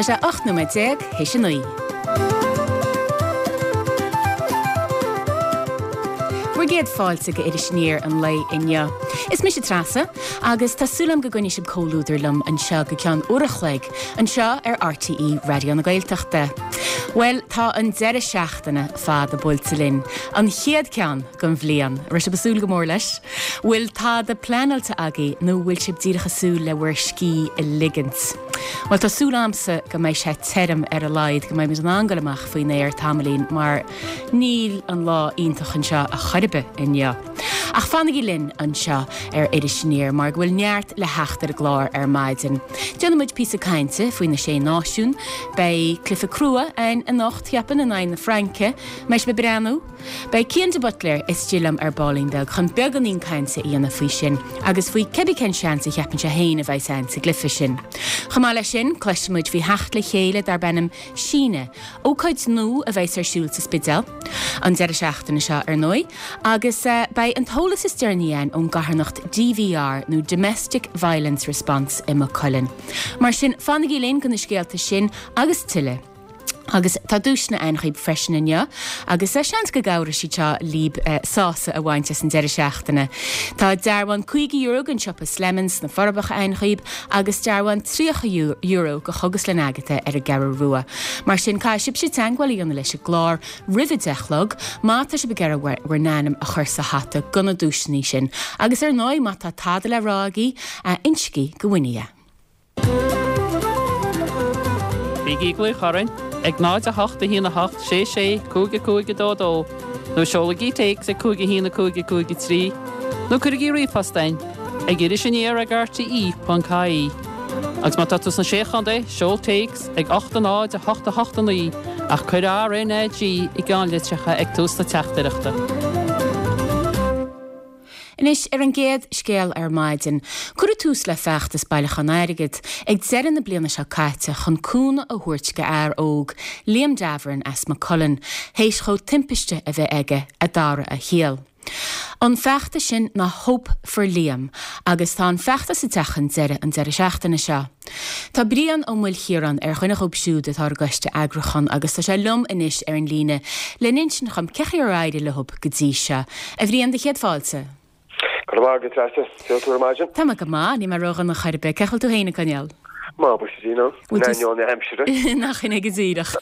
Tá sé 18 nóiméad théis a 9. Bhur gcéad fáilte go Iris Aniar an lae inniu. Is mise Treasa agus tá súil agam go gcoinneoidh sibh comhluadar liom anseo go ceann uair a chloig anseo ar RTÉ Raidió na Gaeltachta. Bhuel, tá an deireadh seachtaine fada buailte linn, an chéad ceann den bhliain. Raibh sibh ag súil go mór leis? Bhfuil tada pleanáilte agaibh nó bhfuil sibh díreach ag súil le bhur scíth a ligint? Bhuel, tá súil a'msa go mbeidh sé tirim ar a laghad, go mbeidh muid in ann goil amach faoin aer tamaillín mar níl an lá iontach anseo a chor ar bith inniu. Ach fanaigí linn anseo ar Iris Aniar mar go bhfuil neart le theacht ar an gclár ar maidin. Déanfaidh muid píosa cainte faoi na Sé Náisiún, beidh cluiche crua againn anocht, cheapfainn, in aghaidh na Fraince. Mbeidh sibh ag breathnú? Beidh Cian de Buitléir istigh liom ar baillín beag chun beagáinín cainte a dhéanamh faoi sin agus faoi cibé cén seans a cheapann sé féin a bheas ann sa gcluiche sin. Chomh maith leis sin, cloisfidh muid faoi theacht le chéile darb ainm Síneadh, ócáid nua a bheas ar siúl sa Spidéal an deireadh seachtaine seo ar ndóigh, agus beidh an t-eolas is deireanaí againn ón gcarthanacht DVR nó Domestic Violence Response i Maigh Cuilinn. Mar sin, fanaigí linn do na scéalta sin agus tuilleadh. Agus tá duaiseanna ann dhaoib freisin inniu, agus seans go gcabhróidh siad seo libh sásamh a bhaint as an deireadh seachtaine. Tá dearbhán €50 don siopa Slemons sna Forbacha ann dhaoib, agus dearbhán €30 go Chógaslann Agatha ar an gCeathrú Rua. Mar sin, caithfidh sibhse teagmháil a dhéanamh leis an gclár roimh a 10 a chlog, má tá sibh ag iarraidh bhur n-ainm a chur sa hata do na duaiseanna sin. Agus ar ndóigh, má tá tada le rá agaibh, insigí do Winnie é. Bígí ag glaoch orainn ag 0 8 1 8 6 6 5 5 2 2 nó seolaigí téacs ag 5 1 5 5 3 nó cuirigí ríomhphost chugainn ag irisaniar ag rte.ie. Agus má tá tú sna Sé Chontae, seol téacs ag 8 0 8 8 9 ach cuir RNAG i gceannlitreacha ag tús na teachtaireachta. Anois, ar an gcéad scéal ar maidin, cuireadh tús le feachtas bailiúcháin airgid ag deireadh na bliana seo caite chun cúnamh a thabhairt go fhear óg, Liam Davoren as Maigh Cuilinn, théis dhó timpiste a bheith aige a d'athraigh a shaol. An feachtas sin ná Hope for Liam agus tá an feachtas ag teacht chun deireadh an deireadh seachtaine seo. Tá Brian Ó Maoilchiaráin ar dhuine dhóibh siúd atá ar an gcoiste eagrúcháin agus tá sé liom anois ar an líne le n-insint dhom cén chaoi ar éirigh leo go dtí seo. A Bhriain, do chéad fáilte. Go raibh maith agat, Treasa. Cén chaoi a bhfuil tú ar maidin? Tá mé go maith, níl mé ródhona chor ar bith. Cén chaoi a bhfuil tú féin ag coinneáil? Maith, buíochas le Dia, in ainneoin na haimsire. Nach in é go díreach.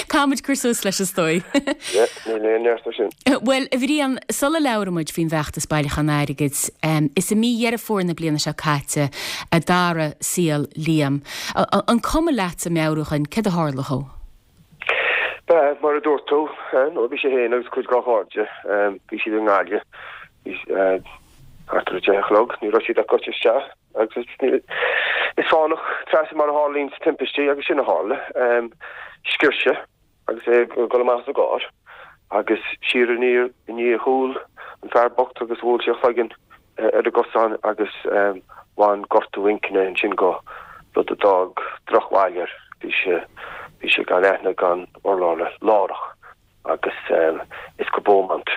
Caithfidh muid cur suas leis is dóigh. Yeah, níl aon neart air sin. Bhuel, a Bhriain, sula labhraíonn muid faoin bhfeachtas bailiúcháin airgid, is i mí Dheireadh Fómhair na bliana seo caite a d'athraigh saol Liam. An cuma leatsa meabhrú dhúinn céard a tharla dhó? Ba, mar a dúirt tú, nó bhí sé féin agus cuid dá chairde, bhí siad i nGaillimh, bhí thart ar a deich a chlog, ní raibh siad ach gaibhte isteach agus is fánach Treasa mar a tharlaíonn timpistí agus sin a tharla. Sciorr sé agus é ag dul amach as an gcarr agus siar i ndiaidh a chúl an fear bocht agus bhuail sé a chloigeann ar an gcosán agus bhain gortú inchinne ansin dhó, rud a d'fhág drochbhail air. Bhí sé, bhí sé gan aithne gan urlabhra láithreach agus is go Beaumont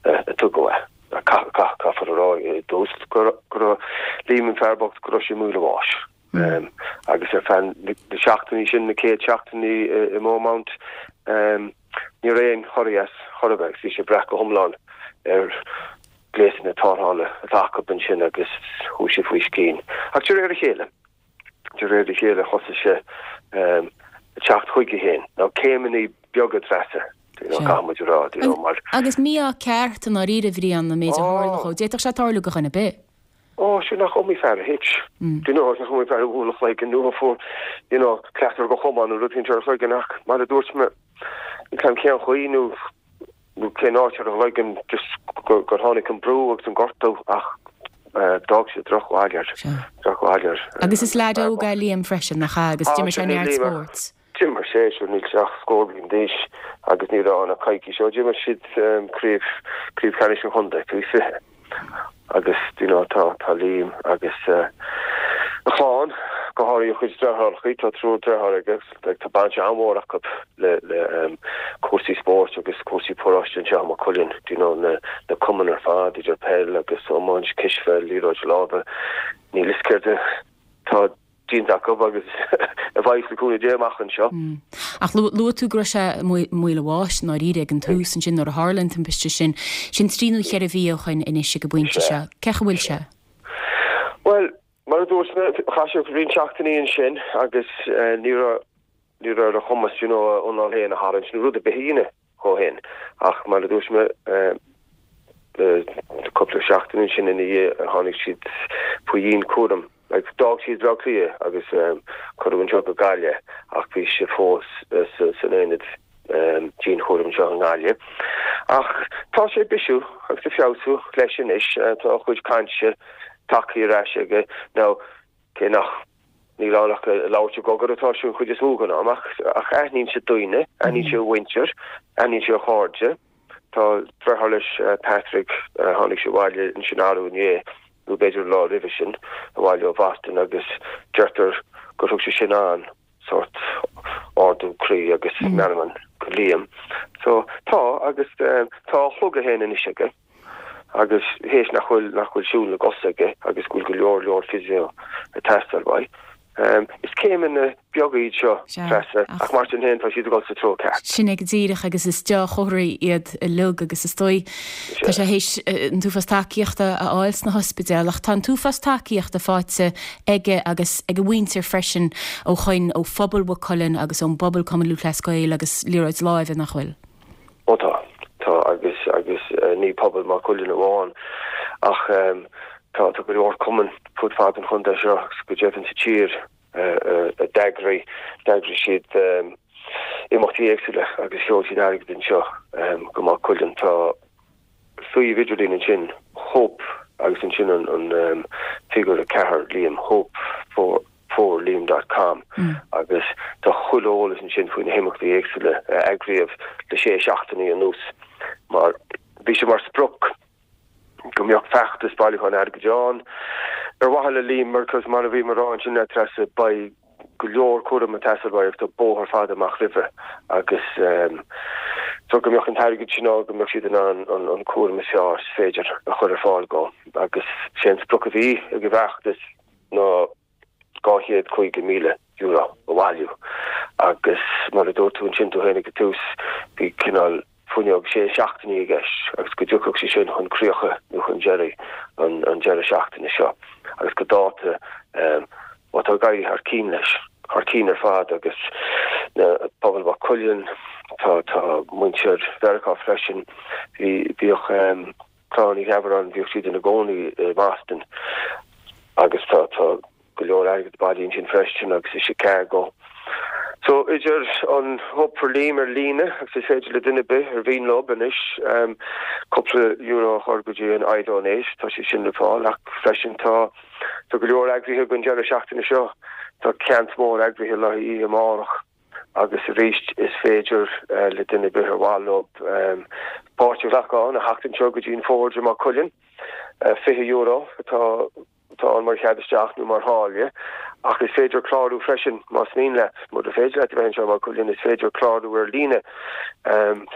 a tugadh é. Caithfear a rá i dtús go raibh Liam an fear bocht go raibh sé i mbaol a bháis. Agus ar feadh na seachtainí sin, na chéad seachtainí i mBeaumont, ní raibh aon chorraí as chor ar bith agus bhí sé ag brath go hiomlán ar ghléasanna tarrthála atá acu ansin agus chuaigh sé faoi scian. Ach de réir a chéile, de réir a chéile thosaigh sé ag teacht chuige féin. Now céimeanna beaga Treasa, you know, caithfidh muid a rá, you know, mar. Agus mí-ádh ceart i ndáiríre, a Bhriain, an méid a tharla dhó. D'fhéadfadh sé tarlú do dhuine ar bith. Ó, sin nach iomaí fear a thit. Do you know, nach iomaí fear a bhuail a chloigeann nó a fuair, you know, cleatar de chamán nó rud éicint ar a chloigeann ach mar a dúirt mé, níl 's a'm cén chaoi nó nó cén áit ar a chloigeann just gur tháinig an brú agus an gortú ach d'fhág sé drochbhail air, drochbhail air. Agus is leaid óg é Liam freisin, nach ea, agus d'imir sé neart spóirt. D'imir sé, sure, níl sé ach scór bliain d'aois agus ní raibh ann ach coicís ó d'imir siad craobh, craobh cheannais an chontae faoi 20 agus you know tá, tá Liam agus a chlann, go háirithe a chuid deartháireachaí, tá triúr deartháir aige agus tá baint an-mhór acu le, le cúrsaí spóirt agus cúrsaí paróiste anseo i Maigh Cuilinn, you know na, na cumainn ar fad idir peil agus iomáint, cispheil, liathróid láimhe, níl 'fhios céard atá. déanta acu agus a bheidh le cúnamh Dé amach anseo. Ach luaigh tú go raibh sé i mbaol a bháis i ndáiríre ag an tús ansin nuair a tharla an timpiste sin. Sin trí nó cheithre mhí ó shoin anois ag an bpointe seo. Cén chaoi a bhfuil sé? Bhuel, mar a dúirt mé, chaith sé roinnt seachtainí ansin agus ní raibh ní raibh ar a chumas you know a anáil féin a tharraingt nó rud ar bith a dhéanamh dhó féin. Ach mar a dúirt mé, cúpla seachtain ansin ina dhiaidh tháinig siad faoi dhianchúram. Like, d'fhág siad Baile Átha Cliath agus cuireadh anseo go Gaillimh ach bhí sé fós san aonad dianchúraim anseo i nGaillimh. Ach tá sé ag bisiú agus ag feabhsú leis anois. Tá a chuid cainte tagtha ar ais aige. Now, cé nach Níl ann ach ag labhairt i gcogar atá sé an chuid is mó den am, ach aithníonn sé daoine, aithníonn sé a mhuintir, aithníonn sé a chairde. Tá deartháir leis, Patrick, tháinig sé abhaile ansin arú inné, nó b'fhéidir an lá roimhe sin, abhaile ó Bhoston agus deirtear gur thug sé sin an sórt ardú croí agus meanman go Liam. So, tá, agus tá a shliogadh féin anois aige. agus théis nach bhfuil nach bhfuil siúl na gcos aige agus go bhfuil go leor leor physio ag teastáil uaidh. Is céimeanna beaga iad seo, Treasa, ach mar sin féin tá siad ag dul sa treo ceart. Sin é go díreach agus is dea-chomharthaí iad uilig agus is dóigh tá sé théis an t-uafás tacaíochta a fháil sna hospidéil ach tá an t-uafás tacaíochta faighte aige agus ag a mhuintir freisin ó shoin ó phobal Mhaigh Cuilinn agus ón bpobal Cumann Lúthchleas Gael agus liathróid láimhe nach bhfuil? Ó tá, tá agus agus ní pobal Maigh Cuilinn amháin ach tá tá go leor cumann fud fad an chontae seo agus go deimhin sa tír a d'eagraigh d'eagraigh siad imeachtaí éagsúla agus sheol siad airgead anseo go Maigh Cuilinn. Tá suíomh idirlín ansin Hope agus ansin an an figiúr 4 Liam Hope for for Liam dot com agus tá chuile eolas ansin faoi na himeachtaí éagsúla a eagraíodh le sé seachtainí anuas mar bhí sé mar sprioc go mbeadh feachtas bailiúcháin airgid ann ar mhaithe le Liam mar cos mar a bhí mé ag rá ansin le Treasa beidh go leor cúraim ag teastáil uaidh agus tá bóthar fada amach roimhe agus so go mbeadh an t-airgead sin ann go mbeadh siad in ann an cúram is fearr is féidir a chur ar fáil dhó agus sé an sprioc a bhí ag an bhfeachtas ná €250,000 a bhailiú agus mar a dúirt tú ansin tú féin ag an tús, bhí cineál fuinneog sé seachtainí i gceist agus go dtiocfadh sé sin chun críocha nó chun deiridh an deireadh seachtaine seo agus go dáta bhuel tá ag éirí thar cinn leis, thar cinn ar fad agus na pobal Mhaigh Cuilinn, tá tá muintir Mheiriceá freisin, bhí bhíodh Clann Uí Gheabaráin, bhíodh siad ina gcónaí i mBoston agus tá tá go leor airgid bailithe ansin freisin agus i Chicago. So idir an Hope for Liam ar líne agus is féidir le duine ar bith ar mhian leo anois cúpla euro a chur go dtí an iDonate, tá sé sin le fáil ach freisin tá tá go leor eagraithe don deireadh seachtaine seo, tá ceant mór eagraithe le haghaidh oíche amárach. Agus arís, is féidir le duine ar bith ar mhaith leo páirt a ghlacadh ann a theacht anseo go dtí an Forge i Maigh Cuilinn. €20 atá atá ann mar chead isteach nó mar tháille, ach is féidir clárú freisin más mian leat. Mura féidir leat a bheith anseo i Maigh Cuilinn, is féidir clárú ar líne.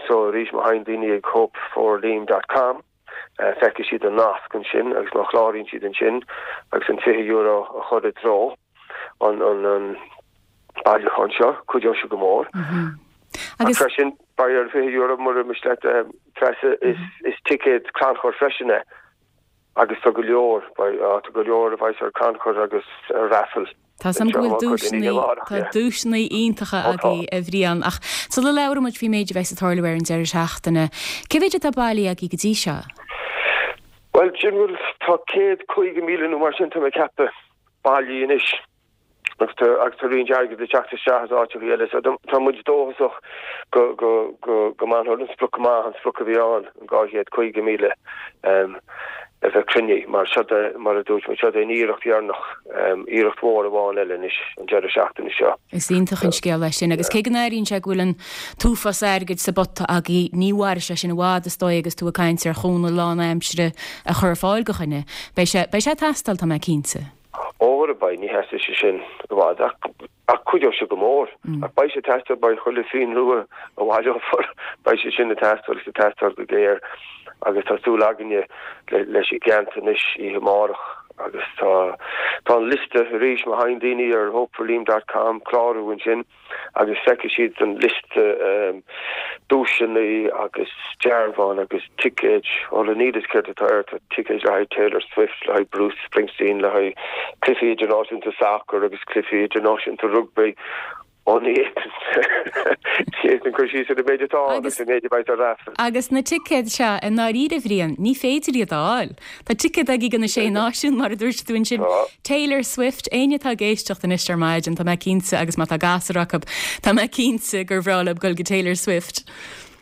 So arís, má théann daoine ag hopeforliam dot com, feicfidh siad an nasc ansin agus má chláraíonn siad ansin agus an €20 a chur i dtreo an an bailiúchán seo, cuideoidh sé go mór. Ach freisin, beidh ar €20 mura miste leat Treasa, is ticéad crannchuir freisin é agus tá go leor, tá go leor a bheas ar crannchur agus ar raffle. Tá 's agam go bhfuil duaiseanna, tá duaiseanna iontacha agaibh a Bhriain, ach sula labhraíonn muid faoin méid a bheas ag tarlú ar an deireadh seachtaine, cé mhéid atá bailithe agaibh go dtí seo? Bhuel, sin bhfuil, tá 150,000 nó mar sin, tá mé ag ceapadh, bailithe anois agus tá, agus tá roinnt airgid ag teacht isteach as áiteacha eile, so tá muid dóchasach go, go, go, go mbainfear an sprioc amach, an sprioc a bhí ann, an 250,000. a bheith cruinnithe, mar seod é, mar a dúirt mé, seod é an iarracht dheireanach, iarracht mhór amháin eile anois an deireadh seachtaine seo. Is iontach an scéal é sin agus cé go n-airíonn sé go bhfuil an t-uafás airgid sa bpota agaibh, ní mhairfidh sé sin i bhfad is dóigh agus tú ag caint ar chúnamh lánaimsire a chur ar fáil do dhuine. Beidh sé, beidh sé ag teastáil, tá mé cinnte. Ó, beidh, ní sheasfaidh sé sin i bhfad ach Ach cuideoidh sé go mór. Ach beidh sé ag teastáil, beidh chuile phingin rua a bhaileofar, beidh sé sin ag teastáil agus ag teastáil go géar agus tá súil againne leis an gceant anois oíche amárach. Agus tá tá an liosta arís má thagann daoine ar hopeforliam dot com clárú ansin agus feicfidh siad an liosta duaiseanna agus dearbháin agus ticéid. Bhuel níl a fhios céard atá air, tá ticéid le haghaidh Taylor Swift, le haghaidh Bruce Springsteen, le haghaidh cluichí idirnáisiúnta sacair agus cluichí idirnáisiúnta rugbaí. Ó ní fhéadfainn cur síos ar an méid atá ann agus an méid a bheidh ar raffle. Agus na ticéid seo, i ndáiríre, a Bhriain, ní féidir iad a fháil. Tá ticéad agaibh do na Sé Náisiún, mar a dúirt tú ansin. Taylor Swift, éinne atá ag éisteacht anois ar maidin, tá mé cinnte, agus má tá gasúr acu, tá mé cinnte gur bhreá leo dul go Taylor Swift.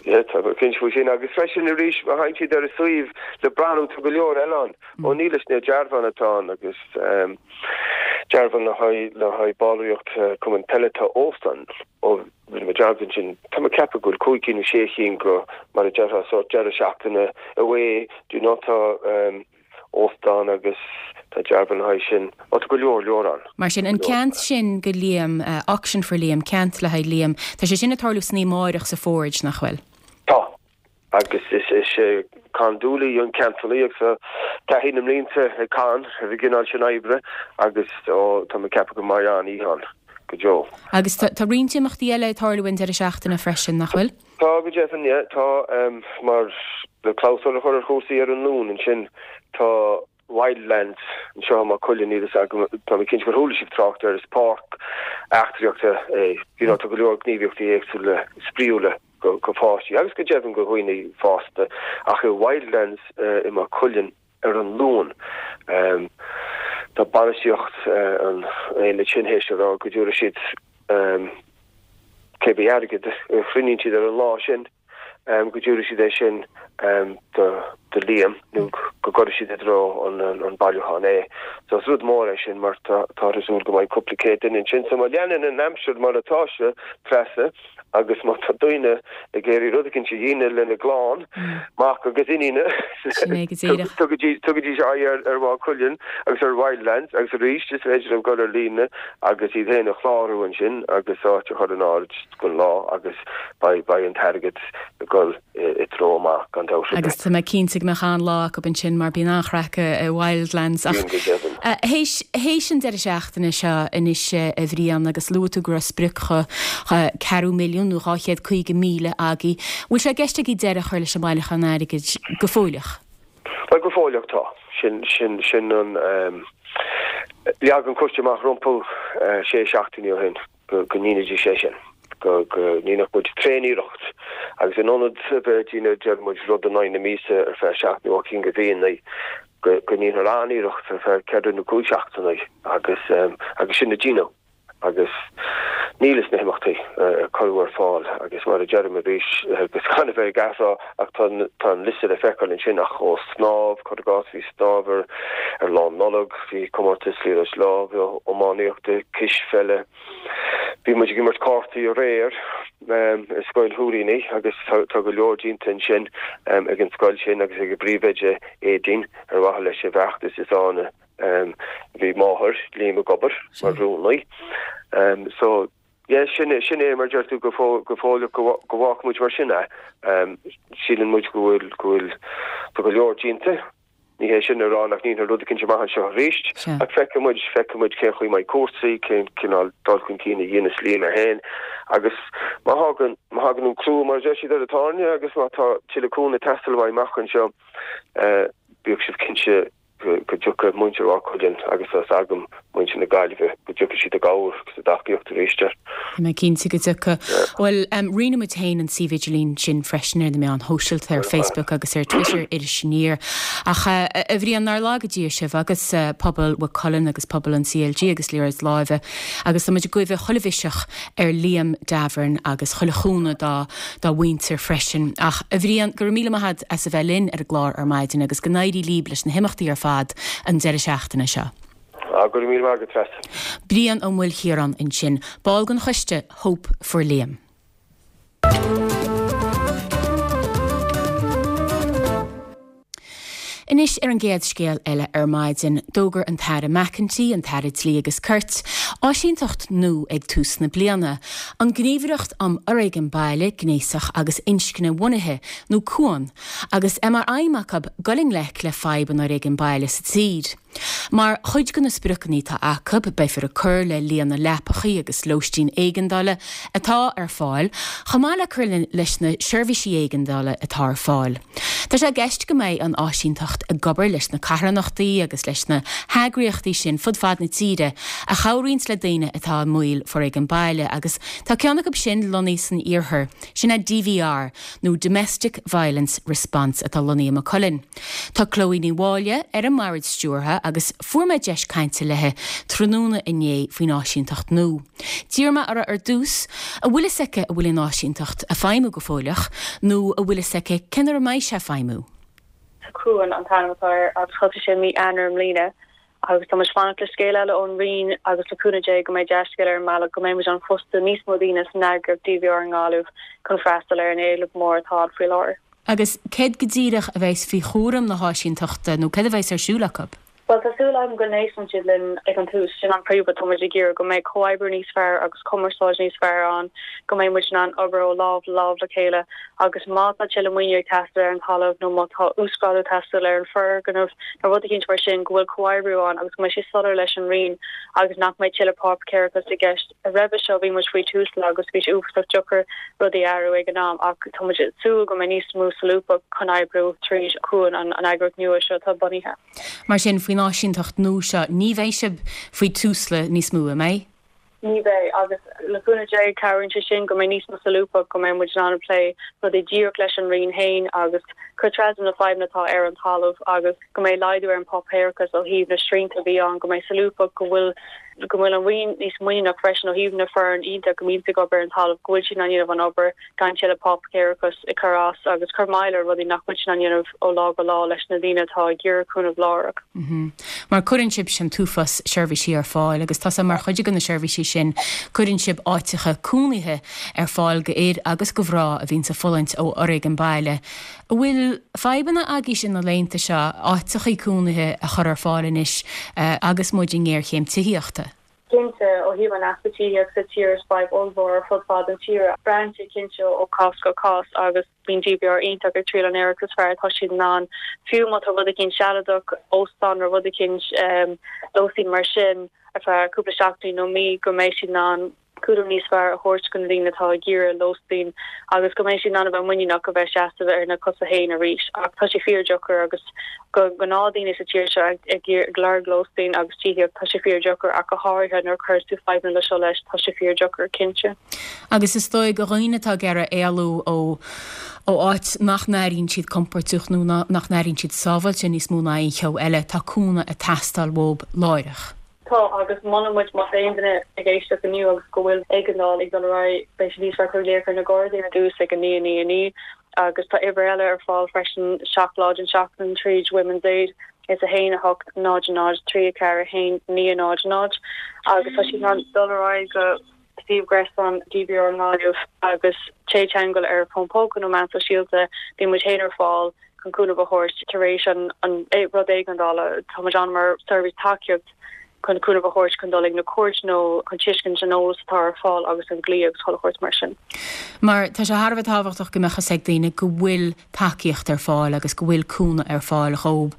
Yeah, tá mé cinnte faoi sin. Agus freisin arís, má thagann siad ar an suíomh le breathnú, tá go leor eile ann. Ó níl a fhios na dearbháin atá ann agus dearbhán le haghaidh le haghaidh ballraíocht cumann peile tá óstán ó rinne mé dearmad ansin. Tá mé ag ceapadh go bhfuil cúig cinn nó sé chinn go mar a déarfá sórt deireadh seachtaine away do you know tá óstán agus tá dearbhán le haghaidh sin. Ó tá go leor leor ann. Mar sin, an ceant sin go Liam, Auction for Liam, ceant le haghaidh Liam, tá sé sin ag tarlú san oíche amárach sa Forge, nach bhfuil? Tá. Agus is é Con Dooley an ceantalaí agus tá taithí na mblianta ag Con ar an gcineál sin oibre agus ó tá mé ag ceapadh go mbeidh an-oíche ann go deo. Agus tá roinnt imeachtaí eile ag tarlú an deireadh seachtaine freisin, nach bhfuil? Tá go deimhin, yeah. Tá, mar le clabhsúr a chur ar chúrsaí ar an Luan ansin, tá Wildlands anseo i Maigh Cuilinn, níl a fhios agam, tá mé cinnte gur chuala sibh trácht air, is páirc eachtraíochta é, you know, tá go leor gníomhaíochtaí éagsúla spraíúla go go pháistí agus go deimhin go dhaoine fásta ach i Wildlands i Maigh Cuilinn ar an Luan tá bainistíocht an aonaid sin théis a rá go dtabharfaidh siad cé bith airgead a chruinníonn siad ar an lá sin. go dtabharfaidh siad é sin do Liam nó go gcuirfidh siad i dtreo an bailiúcháin é. So is rud mór é sin mar táthar ag súil go mbeidh cúpla céad duine ansin. So má leanann an aimsir mar atá sé, Treasa, agus má tá daoine ag iarraidh rud eicínt a dhéanamh lena gclann, mac agus iníne, tugaidís aghaidh ar Mhaigh Cuilinn agus ar Wildlands agus arís is féidir leo dul ar líne agus iad féin a chlárú ansin agus áit a chur in áirithe. don lá agus beidh beidh an t-airgead ag dul i dtreo maith gan dabht ar bith. Agus tá mé cinnte go mbeadh an-lá acu ansin mar bíonn an-chraic i Wildlands. Ach Bíonn go deimhin. théis théis an deireadh seachtaine seo anois a Bhriain agus luaigh tú go raibh sprioc cheathrú milliún nó 250,000 agaibh, bhfuil sé i gceist agaibh deireadh a chur leis an mbailiúchán airgid go fóilleach? Bhuel go fóilleach tá. Sin sin sin an leag an coiste amach rompu sé seachtainí ó shin. go ndéanfaidís é sin, go ndéanfadh muid tréaniarracht agus in ionad a bheith ag déanamh, deir muid, rud in aghaidh na míosa ar feadh seacht nó ocht gcinn de mhíonna, go ndéanfar an-iarracht ar feadh ceithre nó cúig seachtaine agus agus sin a deineadh agus níl fhios na himeachtaí a cuireadh ar fáil agus mar a deirim arís agus gan a bheith ag athrá ach tá tá an liosta le feiceáil ansin ach ó snámh, cuir i gcás, bhí snámh ar ar Lá Nollag, bhí comórtas liathróid láimhe, iománaíochta, cispheile. Bhí muid ag imirt cártaí aréir i Scoil Shúilíní agus tá go leor déanta ansin ag an scoil sin agus ag a bpríomhoide Aedín ar mhaithe leis an bhfeachtas is ann a bhí máthair Liam ag obair mar rúnaí. So yeah sin é sin é mar deir tú go go fóilleach go go bhfágfaidh muid mar sin é. Síleann muid go bhfuil go bhfuil tá go leor déanta. Ní hé sin a rá nach ndéanfar rud eicínt amach anseo arís, ach feicfidh muid, feicfidh muid cén chaoi a mbeidh cúrsaí, cén cineál dul chun cinn a dhéanas Liam é féin agus má thagann, má thagann an crú, mar a deir siad, ar an tairne agus má tá tuilleadh cúnamh ag teastáil uaidh amach anseo, bíodh sibh cinnte go dtiocfaidh muintir Mhaigh Cuilinn agus tá 's agam muintir na Gaillimhe, go dtiocfaidh siad i gcabhair agus i dtacaíocht arís air. Tá mé cinnte go dtiocfaidh. Bhuel, roinnfidh muid féin an suíomh idirlín sin freisin ar na meáin shóisialta, ar Facebook agus ar Twitter, Iris Aniar. Ach, a Bhriain, nár laga Dia sibh agus pobal Mhaigh Cuilinn agus pobal an CLG agus liathróid láimhe agus tá muid ag guí chuile mhiseach ar Liam Davern agus chuile chúnamh dá dá mhuintir freisin. Ach, a Bhriain, go raibh míle maith agat as a bheith linn ar an gclár ar maidin agus go n-éirí líb leis na himeachtaí ar fad an deireadh seachtaine seo. Ah, go raibh míle maith agat, Treasa. Brian Ó Maoilchiaráin ansin, ball den choiste Hope for Liam. Anois ar an gcéad scéal eile ar maidin, d'fhógair an tAire McEntee, an tAire Dlí agus Cirt, áisínteacht nua ag tús na bliana, an Gníomhaireacht um Fhoréigean Baile, Gnéasach agus Inscne-Bhunaithe, nó Cuan, agus é mar aidhm acu dul i ngleic le fadhb an fhoréigin baile sa tír. Mar chuid de na spriocanna atá acu, beifear ag cur le líon na leapachaí agus lóistín éigeandála atá ar fáil, chomh maith le cur leis na seirbhísí éigeandála atá ar fáil. Tá sé i gceist go mbeidh an áisínteacht ag obair leis na carthanachtaí agus leis na heagraíochtaí sin fud fad na tíre a chabhraíonns le daoine atá i mbaol foréigean baile agus tá ceann acu sin lonnaithe san iarthar, sin é DVR nó Domestic Violence Response atá lonnaithe i Maigh Cuilinn. Tá Chloe Ní Mháille ar an mbord stiúrtha agus fuair mé deis cainte léi tráthnóna inné faoin áisínteacht nua. D'iarr mé uirthi ar dtús an bhfuil fhios aici an bhfuil an áisínteacht ag feidhmiú go fóilleach nó an bhfuil fhios aici cén uair a mbeidh sé ag feidhmiú. Cuan an t-ainm atá air agus thosaigh sé mí Eanáir i mbliana agus tá muid fanacht le scéal eile ón Roinn agus le cúnamh Dé go mbeidh dea-scéal ar an mbealach go mbeidh muid in ann fostú níos mó daoine san eagraíocht DVR i nGaillimh chun freastal ar an éileamh mór atá ann faoi láthair. Agus céard go díreach a bheas faoi chúram na háisínteachta nó céard a bheas ar siúl acu? Bhuel, tá súil agam go n-éisteann siad linn ag an tús. Sin an príomhrud atá muid ag iarraidh, go mbeidh comhoibriú níos fearr agus cumarsáid níos fearr ann, go mbeidh muid in ann obair ó lámh le lámh le chéile agus má tá tuilleadh maoiniú ag teastáil ar an talamh nó má tá uasghrádú ag teastáil ar an foirgneamh nó rud eicínt mar sin, go bhfuil comhoibriú ann agus go mbeidh sé soiléir leis an Roinn agus nach mbeidh tuilleadh páipéarachas i gceist. Roimhe seo bhí muid faoi Tusla agus bhí sé uafásach deacair rudaí a athrú ag an am ach tá muid ag súil go mbeidh níos mó solúbthacht chun oibriú tríd Cuan, an eagraíocht nua seo atá bunaithe. Mar sin, faoin áisínteacht nua seo, ní bheidh sibh faoi Tusla níos mó, an mbeidh? Ní bheidh, agus le cúnamh Dé cabhraíonn sé sin go mbeidh níos mó solúbthacht, go mbeidh muid in ann plé rudaí díreach leis an Roinn féin agus cur trasna na fadhbanna atá ar an talamh agus go mbeidh laghdú ar an bpáipéarachas ó thaobh na srianta a bhí ann, go mbeidh solúbthacht, go bhfuil go bhfuil an Roinn níos muiníneach freisin ó thaobh na foireann iontach a mbíonns ag obair ar an talamh, go bhfuil siad in ann dhéanamh an obair gan tuilleadh páipéarachas ag cur as agus cur moill ar rudaí nach bhfuil siad in ann dhéanamh ó lá go lá leis na daoine atá ag iarraidh cúnamh láithreach. Mar cuireann sibhse an t-uafás seirbhísí ar fáil agus tá sé mar chuid de na seirbhísí sin, cuireann sibh áiteacha cónaithe ar fáil go fhir agus go mhná a bhíonns ag fulaingt ó fhoréigean baile. An bhfuil fadhbanna agaibhse na laethanta seo áiteachaí cónaithe a chur ar fáil anois agus muid i ngéarchéim tithíochta? Cinnte, ó thaobh an easpa tithíochta sa tír is fadhb ollmhór ar fud fad an tíre. Braitheann sé cinnte ó chás go cás agus bíonn DVR iontach ag triail an iarracht is fearr atá siad in ann. Fiú má tá rud eicínt sealadach, óstán nó rud eicínt, lóistín mar sin ar feadh cúpla seachtainí nó mí go mbeidh siad in ann cúram níos fearr a thabhairt do na daoine atá ag iarraidh lóistín agus go mbeidh siad in ann a bheith muiníneach a bheith seasamh ar na cosa féin arís. Ach tá sé fíordheacair agus do ghnáthdaoine sa tír seo ag ag lorg lóistín agus tithíocht, tá sé fíordheacair ach go háirithe nuair a chuireas tú fadhbanna le seo leis, tá sé fíordheacair, cinnte. Agus is dóigh do dhaoine atá ag iarraidh éalú ó ó áit nach n-airíonn siad compordach nó nach n-airíonn siad sábháilte níos mó ná aon cheo eile, tá cúnamh ag teastáil uathu láithreach. Tá, agus molann muid má tá aon duine ag éisteacht inniu agus go bhfuil éigeandáil ag dul ar aghaidh, beidh sé níos fearr cur glaoch ar na Gardaí ar dtús ag 9 9 9 agus tá uimhir eile ar fáil freisin 7 lá den seachtain tríd Women's Aid, is 1 8 0 0 3 4 1 9 0 0 agus tá siad in ann dul ar aghaidh go suíomh gréasáin DVR i nGaillimh agus téigh i dteagmháil ar fón póca nó meán sóisialta, bíonn muid féin ar fáil chun cúnamh a thabhairt tar éis an rud éigeandála. Tá muid ann mar seirbhís tacaíocht chun cúnamh a thabhairt chun dul ag na cúirt nó chun tuiscint an eolas atá ar fáil agus an dlí agus chuile shórt mar sin. Mar tá sé thar a bheith tábhachtach go mbeadh a fhios ag daoine go bhfuil tacaíocht ar fáil agus go bhfuil cúnamh ar fáil dhóib.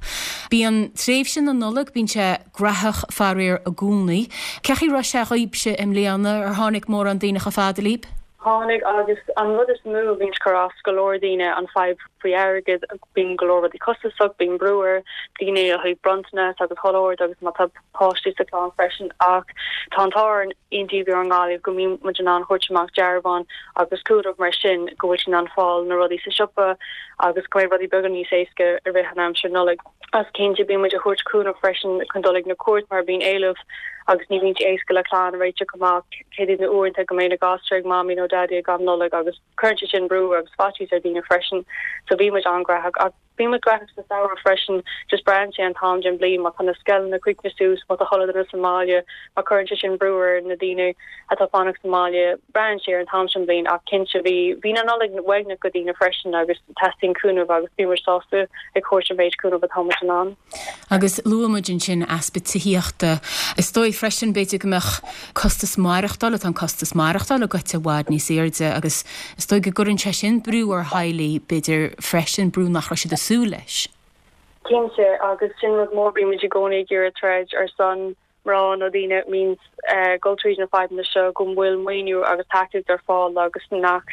Bíonn tréimhse na Nollag, bíonn sé graitheach faraor i gcónaí. Cén chaoi a raibh sé dhaoibhse i mbliana? Ar tháinig mórán daoine chomh fada libh? Tháinig agus an rud is mó a bhíonn ag cur as go leor daoine an fadhb faoi airgead, bíonn go leor rudaí costasach, bíonn brú ar daoine ó thaobh bronntanas agus chuile shórt agus má tá páistí sa chlann freisin ach tá an t-ádh orainn in DVR i nGaillimh go mbíonn muid in ann thabhairt amach dearbháin agus cúnamh mar sin go bhfuil siad in ann fáil na rudaí sa siopa agus go mbeidh rudaí beaga níos éasca i rith an aimsir Nollaig. Agus cinnte bíonn muid ag thabhairt cúnamh freisin chun dul ag na cúirt mar bíonn éileamh agus ní bhíonn sé éasca le clann a réiteach amach céard iad na uaireanta go mbeidh na gasúir ag mamaí nó daidí ag am Nollag agus cuireann sé sin brú agus faitíos ar daoine freisin so bíonn muid an-ghraitheach ach bíonn muid graitheach sa samhradh freisin just braitheann sé an t-am den bhliain má tá na scoileanna críochnaithe suas má tá chuile duine sa mbaile mar cuireann sé sin brú ar na daoine atá fanacht sa mbaile braitheann sé ar an t-am sin bliain ach cinnte bhí bhí na Nollaig uaigneach go daoine freisin agus teastaíonn cúnamh agus bíonn muid sásta ag thabhairt an méid cúnamh atá muid in ann. Agus luaigh muid ansin easpa tithíochta. Is dóigh freisin b'fhéidir go mbeadh costas maireachtála, tá an costas maireachtála goite i bhfad níos airde agus is dóigh go gcuireann sé sin brú ar theaghlaigh b'fhéidir freisin, brú nach raibh siad ag súil leis. Cinnte, agus sin rud mór, bímid i gcónaí ag iarraidh troid ar son mná nó daoine a mbíonns ag dul tríd na fadhbanna seo go bhfuil maoiniú agus tacaíocht ar fáil agus nach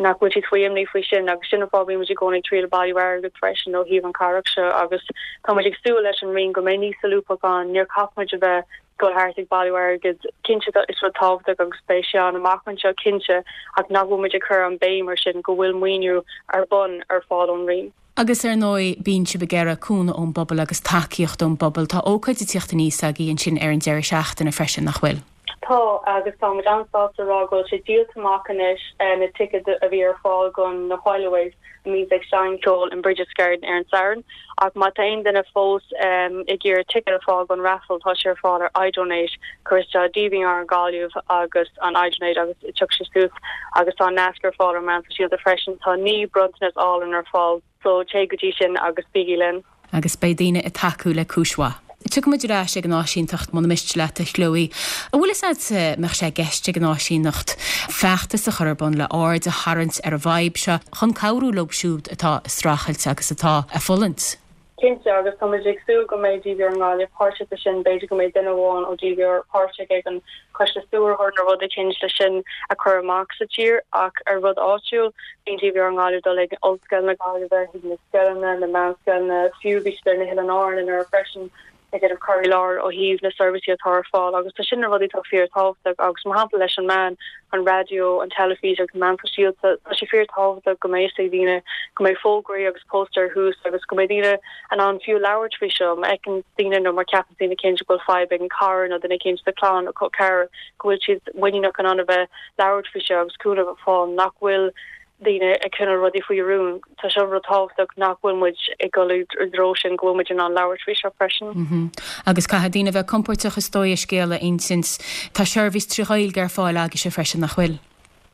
nach bhfuil siad faoi imní faoi sin agus sin an fáth bímid i gcónaí ag triail bailiú airgead freisin ó thaobh an carthanacht seo agus tá muid ag súil leis an Roinn go mbeidh níos solúbthacht ann níor chaith muid a bheith dul thart ag bailiú airgid cinnte is rud tábhachtach agus beidh sé ann amach anseo cinnte ach nach bhfuil muid ag cur an béim ar sin go bhfuil maoiniú ar bun ar fáil ón Roinn. Agus ar ndóigh, bíonn sibh ag iarraidh cúnamh ón bpobal agus tacaíocht ón bpobal. Tá ócáid ag tíocht aníos agaibh ansin ar an deireadh seachtaine freisin, nach bhfuil? Tá, agus tá muid an-sásta a rá go bhfuil sé díolta amach anois, na ticéid a bhí ar fáil do na Whileaways a mbíonns ag seinm ceoil in Brigid's Garden ar an Satharn. Ach má tá aon duine fós ag iarraidh ticéad a fáil don raffle, tá sé ar fáil ar iDonate, cuir isteach DVR Gaillimh agus an iDonate agus tiocfaidh sé suas agus tá an nasc ar fáil ar meáin sóisialta freisin. Tá 9 bronntanas álainn ar fáil so téigh go dtí sin agus bígí linn. Agus beidh daoine ag tacú le cúis mhaith. Tiocfaidh muid ar ais ag an áisínteacht muna miste leat, a Chloe. An bhfuil fhios agat an mbeadh sé i gceist ag an áisíneacht feachtas a chur ar bun le aird a tharraingt ar an bhfadhb seo chun cabhrú leo siúd atá ag streachailt agus atá ag fulaingt? Cinnte, agus tá muid ag súil go mbeidh DVR i nGaillimh páirteach i sin, b'fhéidir go mbeidh duine amháin ó DVR páirteach ag an choiste stiúrthóir nó rud eicínt le sin a chur amach sa tír ach ar rud áitiúil, bíonn DVR i nGaillimh dul ag Ollscoil na Gaillimhe, chuig na scoileanna, na meánscoileanna, fiú bhí siad ar na hOileáin Árann anuraidh freisin ag déanamh cur i láthair ó thaobh na seirbhísí atá ar fáil agus tá sin na rudaí atá fíor tábhachtach agus mar shampla leis an meán, an raidió, an teilifís agus na meáin sóisialta, tá sé fíor tábhachtach go mbeidh fhios ag daoine go mbeidh fógraí agus póstaeir thuas agus go mbeidh daoine in ann fiú labhairt faoi seo má fheiceann daoine nó má cheapann daoine eicínt go bhfuil fadhb ag an cara nó duine eicínt sa chlann nó col ceathrar go bhfuil siad muiníneach in ann a bheith labhairt faoi seo agus cúnamh a fháil nach bhfuil daoine ag coinneáil rudaí faoi rún. Tá seo rud tábhachtach nach bhfuil muid ag dul i dtreo sin go bhfuil muid in ann labhairt faoi seo freisin. Agus caithfidh daoine a bheith compóirteach is dóigh a scéal a insint. Tá seirbhís tri Ghaeilge ar fáil agaibhse freisin, nach bhfuil?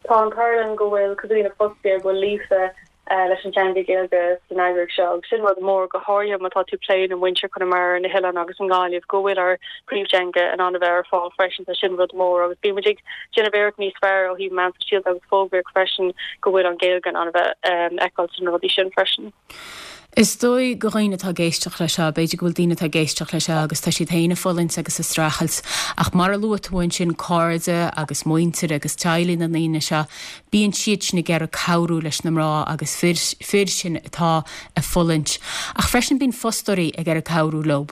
Tá an t-ádh linn go bhfuil cúpla daoine fostaithe go bhfuil líofa leis an teanga Gaeilge san eagraíocht seo agus sin rud mór, go háirithe má tá tú ag plé le muintir Chonamara, na hoileáin agus i nGaillimh, go bhfuil ár bpríomhteanga in ann a bheith ar fáil freisin, tá sin rud mór agus bíonn muid ag déanamh iarracht níos fearr ó thaobh meán sóisialta agus fógraíocht freisin go bhfuil an Ghaeilge in ann a bheith feiceáil sna rudaí sin freisin. Is dóigh go dhaoine atá ag éisteacht le seo, b'fhéidir go bhfuil daoine atá ag éisteacht le seo agus tá siad féin ag fulaingt agus ag streachailt ach mar a luaigh tú ansin cairde agus muintir agus teaghlaigh na ndaoine seo, bíonn siad sin ag iarraidh cabhrú leis na mná agus fir, fir sin atá ag fulaingt. Ach freisin bíonn fostóirí ag iarraidh cabhrú leo.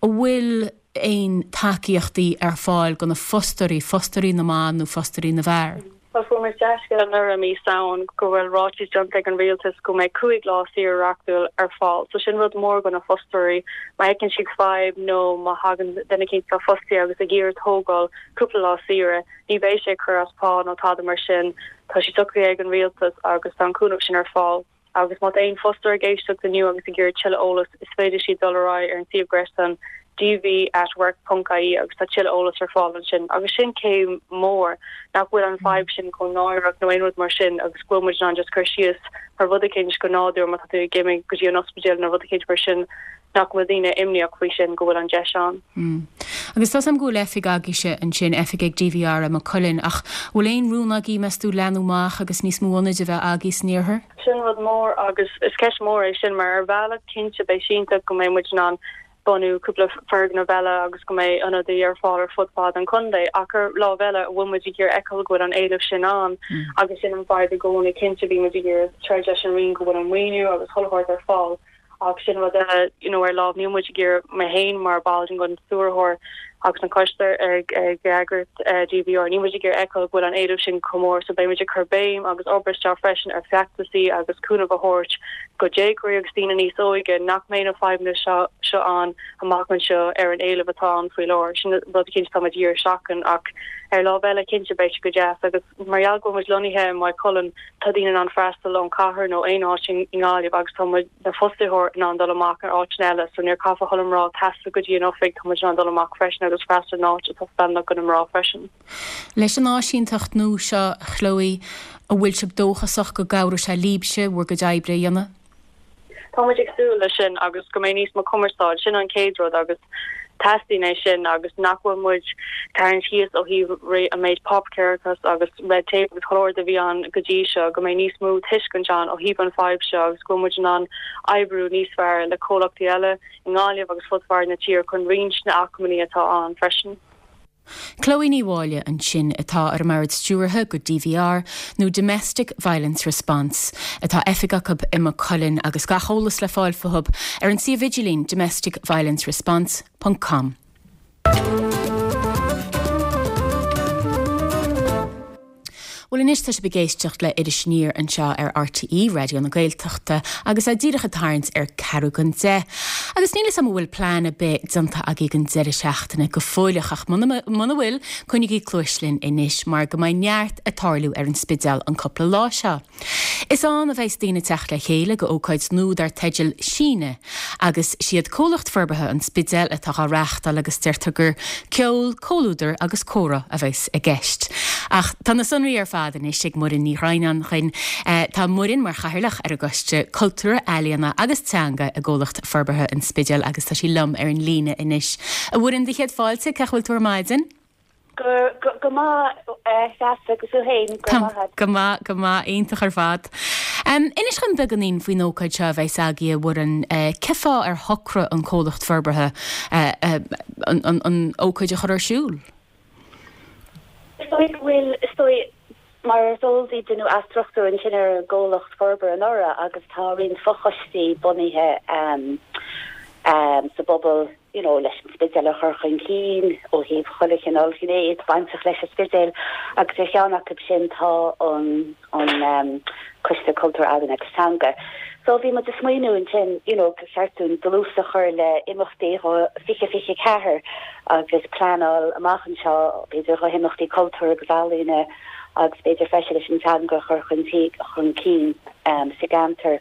An bhfuil aon tacaíochtaí ar fáil do na fostóirí, fostóirí na mban nó fostóirí na bhfear? Bhuel, fuair muid dea-scéala anuraidh i mí Samhain go bhfuil ráiteas déanta ag an rialtas go mbeidh 5 lá saoire reachtúil ar fáil. So sin rud mór do na fostóirí. Má fheiceann siad fadhb nó má thagann duine eicínt atá fostaithe agus ag iarraidh tógáil cúpla lá saoire, ní bheidh sé ag cur as pá nó tada mar sin. Tá sé socraithe ag an rialtas agus tá an cúnamh sin ar fáil. Agus má tá aon fostóir ag éisteacht inniu agus ag iarraidh tuilleadh eolas, is féidir siad dul ar aghaidh ar an suíomh gréasáin dv at work ponc ie agus tá tuilleadh eolas ar fáil ansin. Agus sin céim mór, nach bhfuil an fadhb sin chomh náireach nó aon rud mar sin agus go bhfuil muid in ann just cur síos ar rud eicínt go nádúr má tá tú ag imigh go dtí an ospidéal nó rud eicínt mar sin nach bhfuil daoine imníoch faoi sin, go bhfuil an deis ann. Agus tá 's a'm go bhfuil oifig agaibhse ansin, oifig ag DVR i Maigh Cuilinn, ach bhfuil aon rún agaibh, meas tú, leathnú amach agus níos mó ionaid a bheith agaibh san iarthar? Sin rud mór agus is ceist mhór é sin mar ar bhealach cinnte beidh sé iontach go mbeidh muid in ann bunú cúpla foirgneamh eile agus go mbeidh ionadaí ar fáil ar fud fad an chontae ach ar lámh eile an bhfuil muid ag iarraidh feiceáil go bhfuil an éileamh sin ann agus sin an fadhb i gcónaí cinnte bíonn muid ag iarraidh troid leis an Roinn go bhfuil an maoiniú agus chuile shórt ar fáil Ach sin rud eile, you know, ar lámh, níl muid ag iarraidh, mé féin mar ball den stiúrthóir agus an coiste ag eagraíocht DVR, níl muid ag iarraidh feiceáil go bhfuil an éileamh sin chomh mór so beidh muid ag cur béim agus obair isteach freisin ar feachtasaí agus cúnamh a thabhairt go déagóirí agus daoine níos óige nach mbeidh na fadhbanna seo seo ann amach anseo ar an éileamh atá ann faoi láthair. Sin rud cinnte atá muid ag iarraidh seachain ach ar lámh eile cinnte beidh sé go deas agus Mar gheall go bhfuil muid lonnaithe i Maigh Cuilinn, tá daoine in ann freastal ón chathair nó aon áit i nGaillimh agus tá muid, na fostaitheoir, in ann dul amach ar áiteanna eile so níor caithfidh chuile mná taisteal go dtí an oifig, tá muid in ann dul amach freisin agus freastal in áit atá feiliúnach do na mná freisin. Leis an áisínteacht nua seo, a Chloe, an bhfuil sibh dóchasach go gcabhróidh sé libhse bhur gcuid oibre a dhéanamh? tá muid ag súil leis sin agus go mbeidh níos mó cumarsáid, sin an chéad rud agus teastaíonn é sin agus nach bhfuil muid tarraingt síos ó thaobh an méid páipéarachas agus red tape agus chuile shórt a bhí ann go dtí seo, go mbeidh níos mó tuiscint ann ó thaobh an fadhb seo agus go bhfuil muid in ann oibriú níos fearr le comhlachtaí eile i nGaillimh agus fud fad na tíre chun roinnt na acmhainní atá ann freisin. Chloe Ní Mháille ansin atá ar an mbord stiúrtha go DVR nó Domestic Violence Response. Atá oifig acu i Maigh Cuilinn agus gach eolas le fáil fúthu ar an suíomh idirlín domesticviolenceresponse ponc com. Bhuel anois tá sibh ag éisteacht le Iris Aniar anseo ar RTÉ Raidió na Gaeltachta agus é díreach ag tarraingt ar ceathrú don deich. Agus níl 'fhios a'm an bhfuil plean ar bith déanta agaibh don deireadh seachtaine go fóilleach ach muna muna bhfuil, coinnigí cluais linn anois mar go mbeidh neart ag tarlú ar an Spidéal an cúpla lá seo. Is ann a bheas daoine ag teacht le chéile go ócáid nua dar teideal Síneadh agus siad Comhlacht Forbartha an Spidéil atá dhá reáchtáil agus deirtear gur ceol, comhluadar agus comhrá a bheas i gceist. Ach tá na sonraí ar fad anois ag Muireann Ní Dhroighneáin dhuinn. Tá Muireann mar chathaoirleach ar an gCoiste Cultúir, Ealaíona agus Teanga i gComhlacht Forbartha an Spidéil agus tá sí liom ar an líne anois. A Mhuireann, do chéad fáilte, cén chaoi a bhfuil tú ar maidin? Go maith, a Threasa, agus thú féin, go raibh maith agat. Go maith, go maith, iontach ar fad. Inis dhom beagáinín faoin ócáid seo a bheas agaibh, a Mhuireann. Cén fáth ar shocraigh an comhlacht forbartha an ócáid a chur ar siúl? Is dóigh go bhfuil, is dóigh, mar is eol daoibh, deineadh athstruchtúrú ansin ar an gcomhlacht forbartha anuraidh agus tá roinnt fochoistí bunaithe sa bpobal, you know, leis an Spidéal a chur chun cinn ó thaobh chuile chineál gné bainteach leis an Spidéal agus ar cheann acu sin tá an an Coiste Cultúir, Ealaíon agus Teanga. So bhí muid ag smaoineamh ansin, you know, gur cheart dúinn dlús a chur le imeachtaí 2024 agus pleanáil amach anseo b'fhéidir do himeachtaí cultúir agus ealaíne agus b'fhéidir freisin leis an teanga a chur chun chun cinn sa gceantar.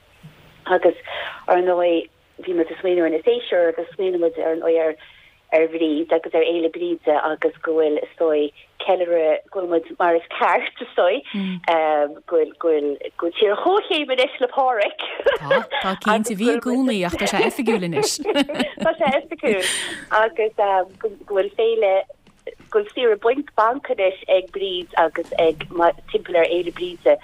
Agus ar ndóigh bhí muid ag smaoineamh ar na séasúir agus smaoinigh muid ar ndóigh ar ar Bhríd agus ar Fhéile Bríde agus go bhfuil is dóigh ceiliúradh go bhfuil muid mar is ceart is dóigh go bhfuil go bhfuil go bhfuil tír ar chomhchéim anois le Pádhraic. Tá, tá cinnte, bhí i gcónaí ach tá sé oifigiúil anois. Tá sé oifigiúil agus go bhfuil féile go bhfuil saoire bainc banc anois ag Bríd agus ag timpeall ar Fhéile Bríde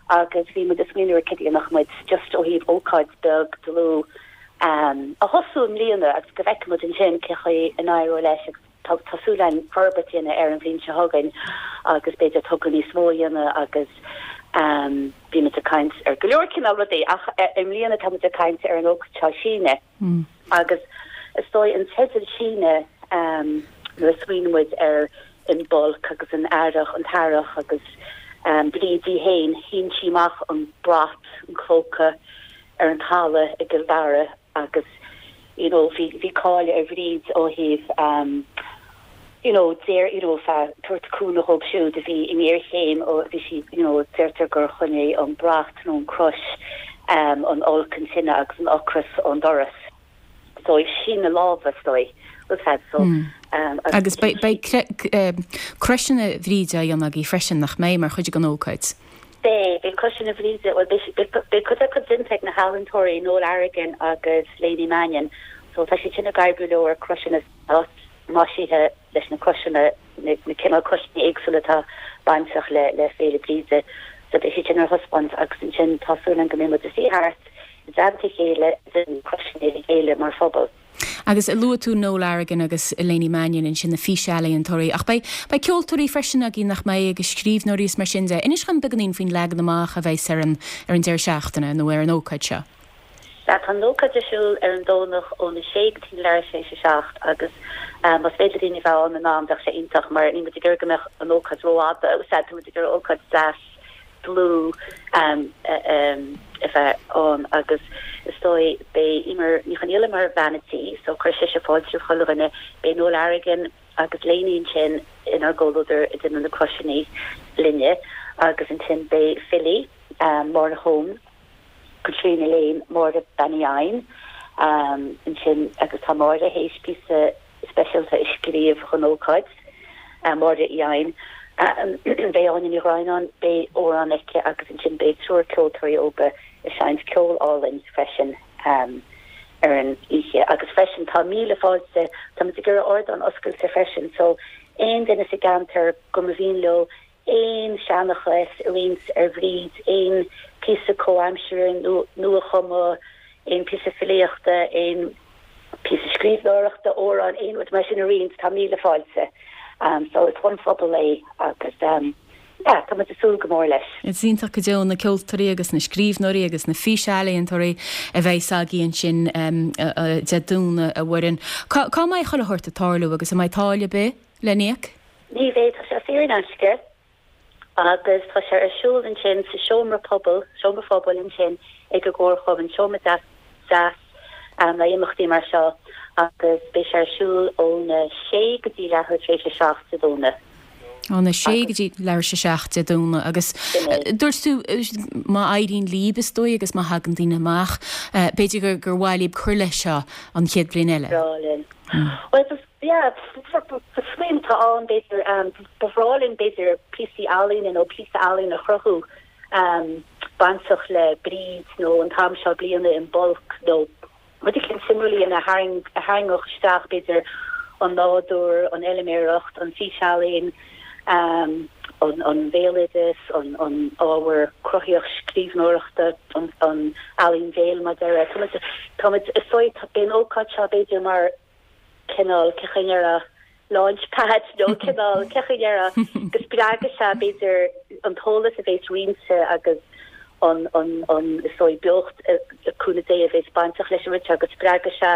agus bhí muid ag smaoineamh ar cad a dhéanfadh muid just ó thaobh ócáid beag dlúth a thosú i mbliana agus go bhfeicfidh muid ansin cé chaoi a n-éireoidh leis agus tá tá súil againn forbairt a dhéanamh air an bhliain seo chugainn agus b'fhéidir togra níos mó a dhéanamh agus bhí muid ag caint ar go leor cineál rudaí ach i mbliana tá muid ag caint ar an ócáid seo Síneadh. Agus is dóigh an teideal Síneadh nuair a smaoiníonn muid ar Imbolc agus an earrach, an t-earrach agus Bríd í féin, shín sí amach an brat, an clóca ar an talamh i gCill Dara agus you know bhí bhí cáil ar Bhríd ó thaobh you know deir you know feadh tabhairt cúnamh dhóibh siúd a bhí i ngéarchéim ó bhí sí you know deirtear gur choinnigh an brat nó an crois um an olc an tine agus an ocras ón doras so síneadh láimhe is dóigh was had so um agus beidh beidh croiseanna Bhríde á dhéanamh agaibh freisin nach mbeidh mar chuid den ócáid? Beidh, beidh croiseanna Bhríde, bhuel beidh beidh cuid acu déanta ag na healaíontóirí Noel Arrigan agus Léiní Mannion so tá siad sin ag oibriú leo ar croiseanna maisithe leis na croiseanna, na cineál croiseanna éagsúla atá bainteach le le Féile Bríde. So beidh siad sin ar thaispeáint agus ansin tá súil againn go mbeidh muid ag suí thart i dteannta a chéile ag déanamh na croiseanna le chéile mar phobal. Agus luaigh tú Noel Arrigan agus Léiní Mannion ansin, na físealaíontóirí, ach beidh beidh ceoltóirí freisin agaibh nach mbeidh agus scríbhneoirí is mar sin de. Inis dhom beagáinín faoin leagan amach a bheas ar an ar an deireadh seachtaine nó ar an ócáid seo. Sea, tá an ócáid ar siúl ar an Domhnach óna sé go dtí leathuair tar éis a 7 agus más féidir le daoine a bheith ann in am bheadh sé iontach mar níl muid ag iarraidh go mbeadh an ócáid rófhada. Sea, tá muid ag iarraidh ócáid deas dlúth a bheith ann agus is dóigh beidh Eimear Ní Chonghaile mar bhean a' tí so cuirfidh sise fáilte roimh chuile dhuine. Beidh Noel Arrigan agus Léiní ansin inár gcomhluadar ag déanamh na croiseanna linne agus ansin beidh filí, Máire Hone, Caitríona Lane, Máire Bean Uí Eidhin ansin agus tá Máire théis píosa speisialta a scríobh don ócáid, Máire Uí Eidhin. Beidh Áine Ní Dhroighneáin, beidh amhrán aici agus ansin beidh triúr ceoltóirí óga ag seinnt ceol álainn freisin. Ar an oíche agus freisin tá míle fáilte, tá muid ag iarraidh ardán oscailte freisin so aon duine sa gceantar go mba mhian leo aon seanchas a roinnt ar Bhríd, aon píosa comhaimseartha nua-chumtha, aon píosa filíochta, aon píosa scríbhneoireachta, amhrán, aon rud mar sin a roinnt, tá míle fáilte. So is don phobal é agus yeah, tá muid ag súil go mór leis. Is iontach go deo na ceoltóirí agus na scríbhneoirí agus na físealaíontóirí a bheidh agaibh ansin Dé Domhnaigh, a Mhuireann. Cá cá mbeidh chuile shórt ag tarlú agus an mbeidh táille ar bith le n-íoc? Ní bheidh, tá sé saor in aisce agus tá sé ar siúl ansin sa seomra pobail, seomra phobail ansin ag an gComharchumann, seomra deas deas le imeachtaí mar seo agus beidh sé ar siúl óna sé go dtí leathuair tar éis a 7 Dé Domhnaigh. Óna sé go dtí leathuair tar éis a 7 Dé Domhnaigh agus dúirt tú má éiríonn líb is dóigh agus má thagann daoine amach, b'fhéidir gur gur mhaith líb cur leis seo an chéad bhliain eile. Breá linn. Bhuel, yeah, smaoineamh atá ann b'fhéidir, ba bhreá linn b'fhéidir píosaí ealaíne nó píosa ealaíne a chruthú bainteach le Bríd nó an t-am seo bliana Imbolc nó rud eicínt suimiúil a tharraingeodh isteach b'fhéidir an nádúr, an fheilméaracht, an físealaín, an bhéaloideas, an ábhar cruthaíoch scríbhneoireachta, an ealaín bhéil mar a déarfá. Tá muid, is dóigh, beidh an ócáid seo b'fhéidir mar cineál, cén chaoi a ndéarfá, launch pad nó cineál, cén chaoi a ndéarfá, go spreagfaidh sé b'fhéidir an t-eolas a bhéas roinnte agus an, an, an, is dóigh, beocht, le cúnamh Dé, a bhéas bainteach leis an rud seo, go spreagfaidh sé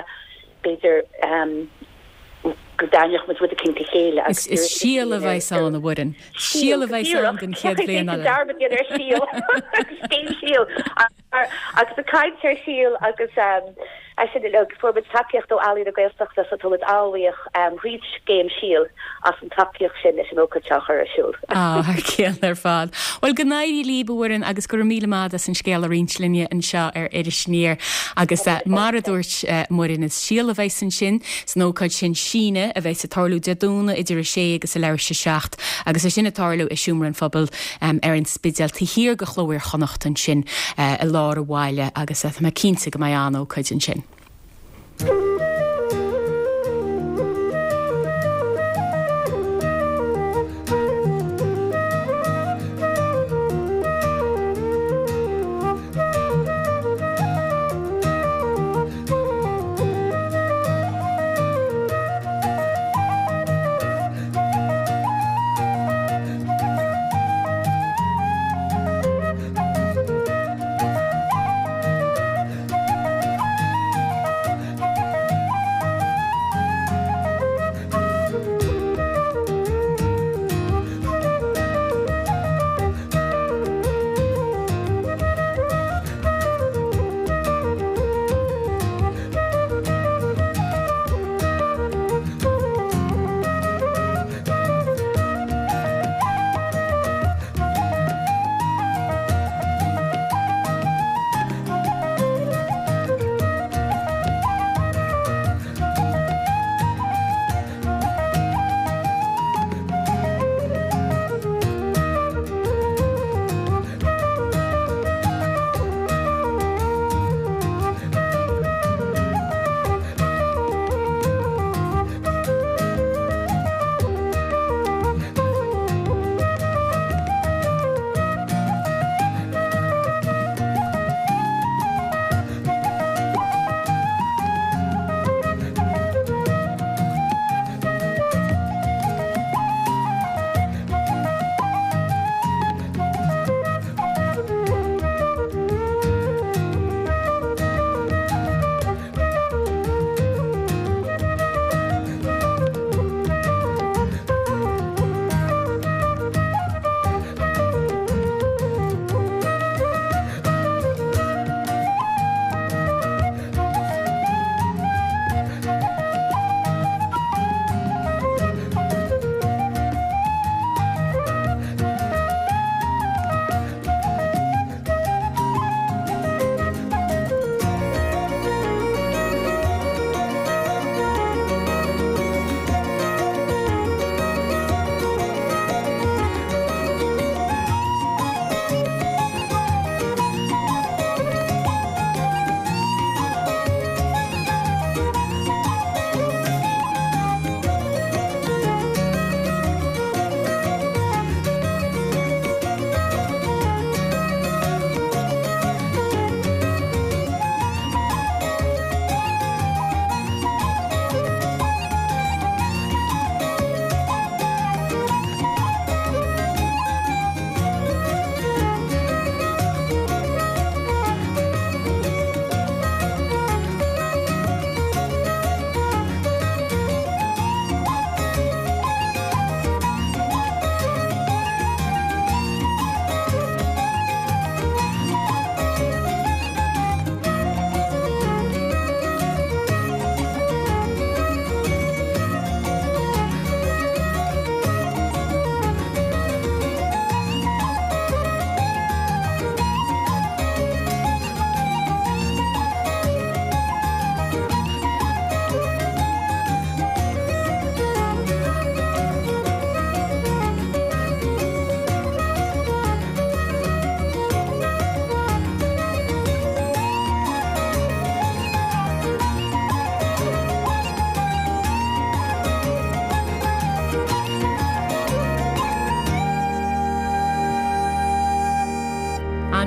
b'fhéidir go dtarraingeodh muid rud eicínt le chéile agus Is síol a bheas ann, a Mhuireann. Síol a bheas ann don chéad bhliain eile. Dearmad a dhéanamh ar síol. Cén síol? Agus ag caint ar shíol agus é sin uilig, fuair muid tacaíocht ó Ealaín na Gaeltachta so tá muid an-bhuíoch thríd scéim Síol as an tacaíocht sin leis an ócáid seo a chur ar siúl. Á, thar cionn ar fad. Bhuel, go n-éirí líb, a Mhuireann, agus go raibh míle maith as an scéal a roinnt linne anseo ar Iris Aniar. Agus mar a dúirt Muireann, is síol a bheas ansin san ócáid sin, Síneadh, a bheas ag tarlú Dé Domhnaigh idir a sé agus a leathuair tar éis a 7 agus é sin ag tarlú i Seomra an Phobail ar an Spidéal, taobh thiar de Chló Iar-Chonnacht ansin i lár an bhaile agus tá mé cinnte go mbeidh an-ócáid ansin.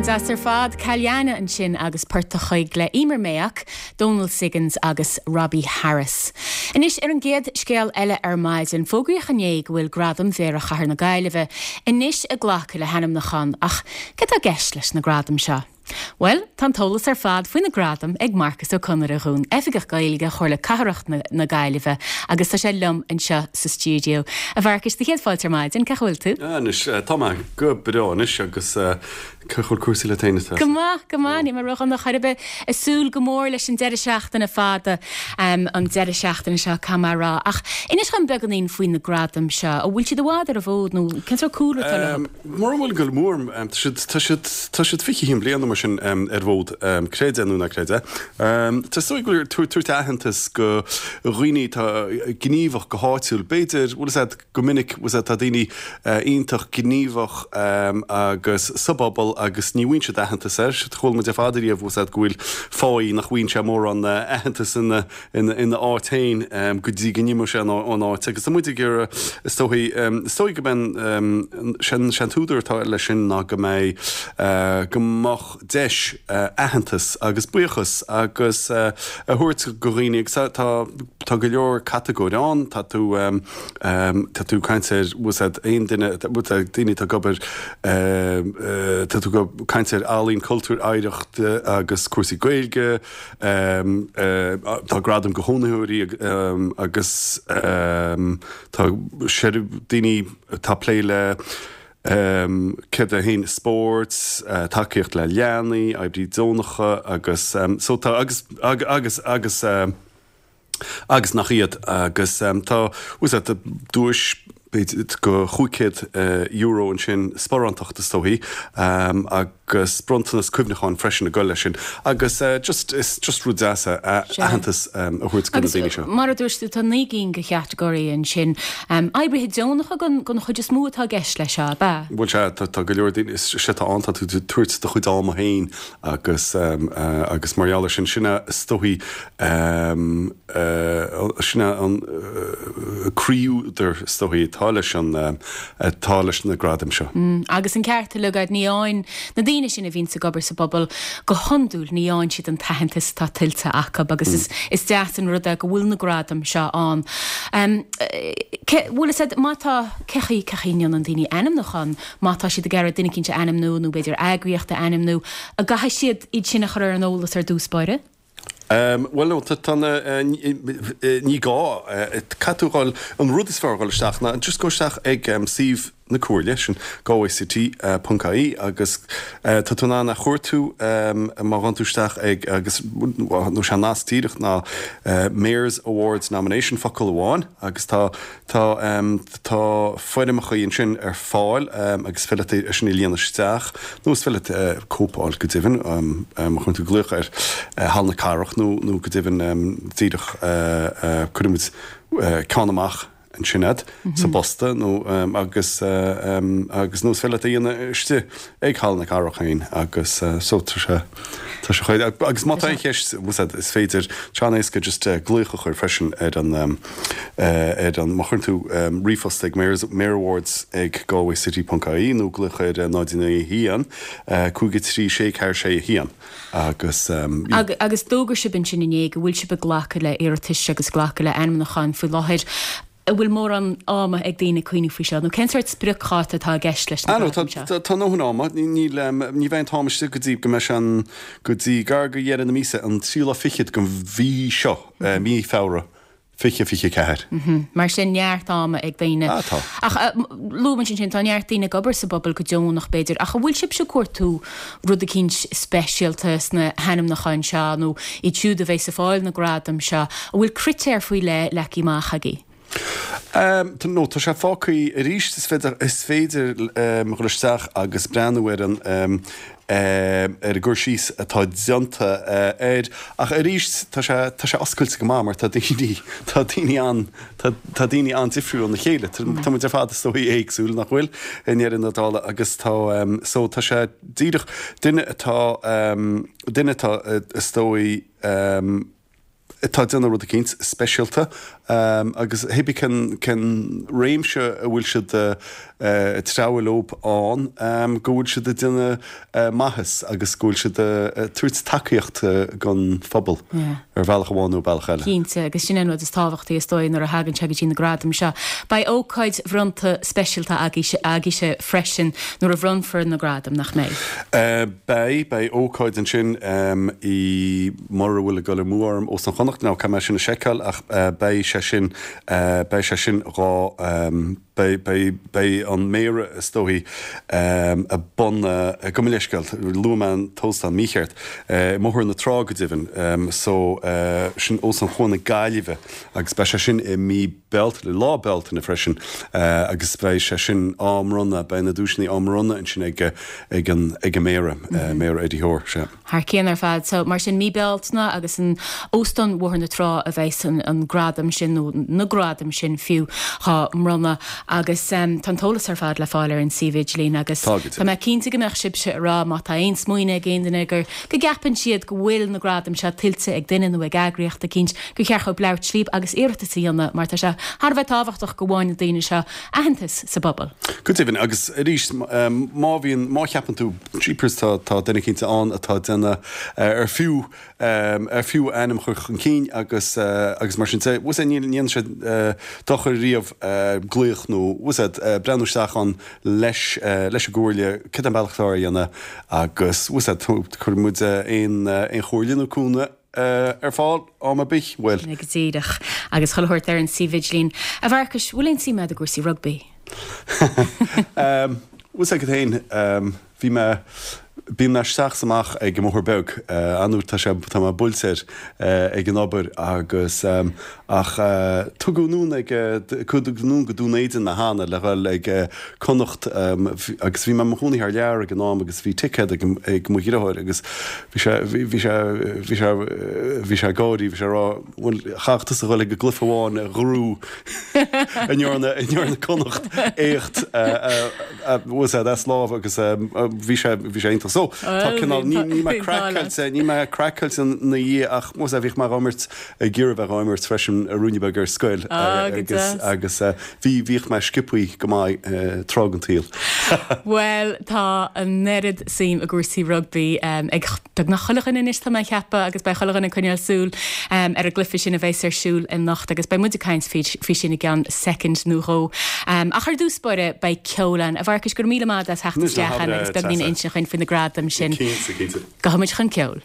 Deas ar fad. Calliana ansin agus Port a' Choig le Eimear Mayock, Dónal Siggins agus Robbie Harris. Anois ar an gcéad scéal eile ar maidin, fógraíodh inné go bhfuil Gradaim Mhéara Chathair na Gaillimhe anois ag glacadh le hainmniúcháin ach céard atá i gceist leis na gradaim seo? Bhuel, tá an t-eolas ar fad faoi na gradaim ag Marcus Ó Conaire dhúinn, Oifigeach Gaeilge Chomhairle Cathrach na Gaillimhe agus tá sé liom anseo sa stiúideo. A Mharcais, do chéad fáilte ar maidin, cén chaoi a bhfuil tú? Anois, tá mé go breá anois agus cén chaoi a bhfuil cúrsaí leat féin, a Treasa? Go maith, go maith, níl mé ródhona chor ar bith. Ag súil go mór leis an deireadh seachtaine fada, an deireadh seachtaine seo, caithfidh mé a rá. Ach inis dhom beagáinín faoi na gradaim seo, an bhfuil siad i bhfad ar an bhfód nó cén sórt cúlra atá leo? Mura bhfuil go mór, tá siad, tá siad, tá siad 21 bliain nó mar sin ar an bhfód, creid é nó ná creid é. Tá is dóigh go bhfuil tabhairt aitheantas go dhaoine atá gníomhach go háitiúil. B'fhéidir, bhfuil fhios a'd, go minic, bhfuil fhios a'd, tá daoine iontach gníomhach agus sa bpobal agus ní bhfaigheann siad aitheantas air. Chuala muid ar fad ariamh, bhfuil fhios a'd, go bhfuil fáidh nach bhfaigheann sé mórán aitheantas ina, ina áit féin go dtí go n-imeoidh sé ón áit agus tá muid ag iarraidh, is dóigh, is dóigh go mbeidh an, sé an t-údar atá leis sin ná go mbeidh, go mbeadh deis aitheantas agus buíochas agus a thabhairt go dhaoine agus tá, tá go leor catagóir ann, tá tú, tá tú ag caint ar, bhfuil fhios a'd, aon duine, daoine atá ag obair, tá tú ag caint ar ealaín, cultúr, oidhreacht agus cúrsaí Gaeilge, Tá gradaim go chónaitheoirí agus tá daoine atá ag plé le céard é féin, spórt, tacaíocht le leanaí, oibrí deonacha agus so tá agus agus agus agus nach iad agus tá bhfuil fhios a'd duais b'fhéidir go €500 ansin, sparántacht is dóichí, agus bronntanas cuimhneacháin freisin ag dul leis sin. Agus just, is just rud deas é aitheantas a thabhairt do na daoine seo. Agus mar a dúirt tú, tá 9 gcinn de chatagóirí ansin. Oibrithe deonacha den chuid is mó atá i gceist leis seo, ab ea? Bhuel sea, tá go leor daoine, is é atá ann, tá tú ag tabhairt do chuid ama féin agus agus mar gheall air sin, sin é is dóichí, Sin é an croí-údar, is dóichí, atá leis an, atá leis na gradaim seo. Agus an ceart uilig agat, ní fhaigheann na daoine sin a bhíonns ag obair sa bpobal, go hiondúil, ní fhaigheann siad an t-aitheantas atá tuillte acu agus is deas an rud é go bhfuil na gradaim seo ann. Cé, bhfuil fhios agat, má tá, cé chaoi, cé chaoi a ndéanann daoine ainmniúchán, má tá siad ag iarraidh duine eicínt a ainmniú nó b'fhéidir eagraíocht a ainmniú, an gcaithfidh siad iad sin a chur ar an eolas ar dtús báire? Bhuel, no, tá na, ní gá, caithfidh tú a dhul, an rud is fearr a dhul isteach ná just go isteach ag suíomh na Comhairle, sin galwaycity ponc ie agus tá tú in ann a chuartú má ghabhann tú isteach ag agus nó sé an nasc díreach ná Mayor's Awards Nomination focal amháin agus tá Tá tá foirmeacha ansin ar fáil agus is féidir leat é sin a líonadh isteach nó is féidir leat cóip a fháil go deimhin má chuireann tú glaoch ar Halla na Cathrach nó nó go deimhin díreach cuirfidh muid ceann amach ansin a'd sa bposta nó agus agus nó is féidir leat é a dhéanamh istigh ag Halla na Cathrach féin agus so tá sé tá sé chomh agus má tá aon cheist is féidir tá sé an-éasca just glaoch a chur freisin ar an ar an má chuireann tú ríomhphost ag mayors mayorawards ag galwaycity ponc ie nó glaoch ar 0 9 1 5 3 6 4 6 1 agus Agus d'fhógair sibh ansin inné go bhfuil sibh ag glacadh le iarratais agus glacadh le ainmniúcháin faoi láthair. An bhfuil mórán ama ag daoine cuimhneamh faoi seo, nó cén sórt spriocdháta atá i gceist leis na gradaim seo? Tá ndóthain ama. Níl, ní bheidh an t-am istigh go dtí go mbeidh sé an, go dtí gar go dheireadh na míosa, an tríú lá fichead den mhí seo, mí Feabhra 2024. Mar sin, neart ama ag daoine. Ah, tá. Ach luaigh muid ansin, tá neart daoine ag obair sa bpobal go deonach, b'fhéidir, ach an bhfuil sibhse ag cuartú rud eicínt speisialta sna hainmniúcháin seo nó iad siúd a bheas ag fáil na gradam seo, an bhfuil critéir faoi leith leagtha amach agaibh? No, tá sé fágtha arís, is féidir, is féidir dhul isteach agus breathnú ar an ar an gcur síos atá déanta air ach arís tá sé, tá sé oscailte go maith mar tá daoine, tá daoine an, tá, tá daoine an-difriúil óna chéile. Tá muid ar fad is dóigh éagsúil, nach bhfuil, i ndeireadh na dála agus tá, so tá sé díreach, duine atá, duine atá is dóigh. Atá ag déanamh rud eicínt speisialta agus hé bí cén cén réimse a bhfuil siad ag treabhadh leob ann, go bhfuil siad ag déanamh maitheas agus go bhfuil siad ag tabhairt tacaíocht don phobal ar bhealach amháin nó bealach eile. Cinnte, agus sin é an rud is tábhachtaí is dóigh nuair a thagann sé go dtí na gradaim seo. Beidh ócáid bhronnta speisialta agaibhse freisin nuair a bhronnfar na gradaim, nach mbeidh? Beidh, beidh ócáid ansin i, mura bhfuil ag dul amú orm, Óstán Chonnacht, now caithfidh mé sin a sheiceáil ach beidh sé sin, beidh sé sin dhá, Beidh, beidh, beidh an Méara is dóichí i bun, gabh mo leithscéal, luaigh mé an t-óstán mícheart, i mBóthar na Trá go deimhin, so sin Óstán Chuan na Gaillimhe agus beidh sé sin i mí Bealtaine, lá Bealtaine freisin agus beidh sé sin á mbronnadh, beidh na duaiseanna á mbronnadh ansin ag, ag an, ag an Méara, Méara Eddie Hoare, sea. Thar cionn ar fad. So, mar sin, mí Bealtaine agus in Óstán Bhóthar na Trá a bheas an gradam sin, nó na gradaim sin fiú, á mbronnadh. Agus tá an t-eolas ar fad le fáil ar an suíomh idirlín agus tá mé cinnte go mbeadh sibhse ag rá má tá aon smaoineamh ag aon duine gur, go gceapann siad go bhfuil na gradaim seo tuillte ag duine nó ag eagraíocht eicínt, gur cheart dhóibh labhairt líb agus iarratas a dhéanamh mar tá sé thar a bheith tábhachtach go bhfaigheann na daoine seo aitheantas sa bpobal. Go deimhin, agus arís, má bhíonn, má cheapann tú, jeepers, tá, tá duine eicínt ann atá ag déanamh ar fiú, ar fiú a ainm a chur chun cinn agus, agus mar sin de, bhfuil a fhios agat, ní dhéanann sé dochar riamh glaoch nó, bhfuil a fhios agat, breathnú isteach ann leis, leis an gcomhairle, cad é an bealach atá a dhéanamh agus, bhfuil a fhios agat, cuirfidh muid aon, aon chomhairle nó cúnamh ar fáil am ar bith, bhuel. Go díreach. Agus chuile shórt ar an suíomh idirlín. A Mharcais, bhfuil aon suim agat i gcúrsaí rugbaí? Bhfuil a fhios agat féin, bhí mé, bíonn mé isteach is amach ag an mBóthar Beag, an-uair tá sé, tá mé buailte air ag an obair agus ach tugadh anonn ag, tugadh anonn go Dún Éideann mé cheana le dhul ag Connacht agus bhí mé i mo chónaí thar lear ag an am agus bhí ticéad ag ag mo dheartháir agus bhí sé bhí sé bhí sé bhí sé ag gáirí bhí sé ag rá bhuel chaithfeadh tusa dhul ag an gcluiche amháin a ghrú a ndearna a ndearna Connacht éacht bhfuil a fhios agat as lámh agus bhí sé bhí sé iontach so tá cineál ní ní mé craiceáilte ní mé craiceáilte ina dhiaidh ach bhfuil a fhios agat bhíodh mé á imirt ag iarraidh bheith á imirt freisin ruainne beag ar scoil agus agus Bhí, bhíodh mé sciobthaí go maith tráth den tsaol. Bhuel, tá an oiread suim i gcúrsaí rugbaí ag beagnach chuile dhuine anois, tá mé ag ceapadh, agus beidh chuile dhuine ag coinneáil súil ar an gcluiche sin a bheas ar siúl anocht agus beidh muid ag caint faoi sin i gceann soicind nó dhó. Ach ar dtús báire, beidh ceol ann. A Mharcais, go raibh míle maith agat as theacht isteach ann agus beagnín a insint dhuinn faoi na gradaim sin. Cinnte, cinnte. Gabhfaidh muid chun ceoil.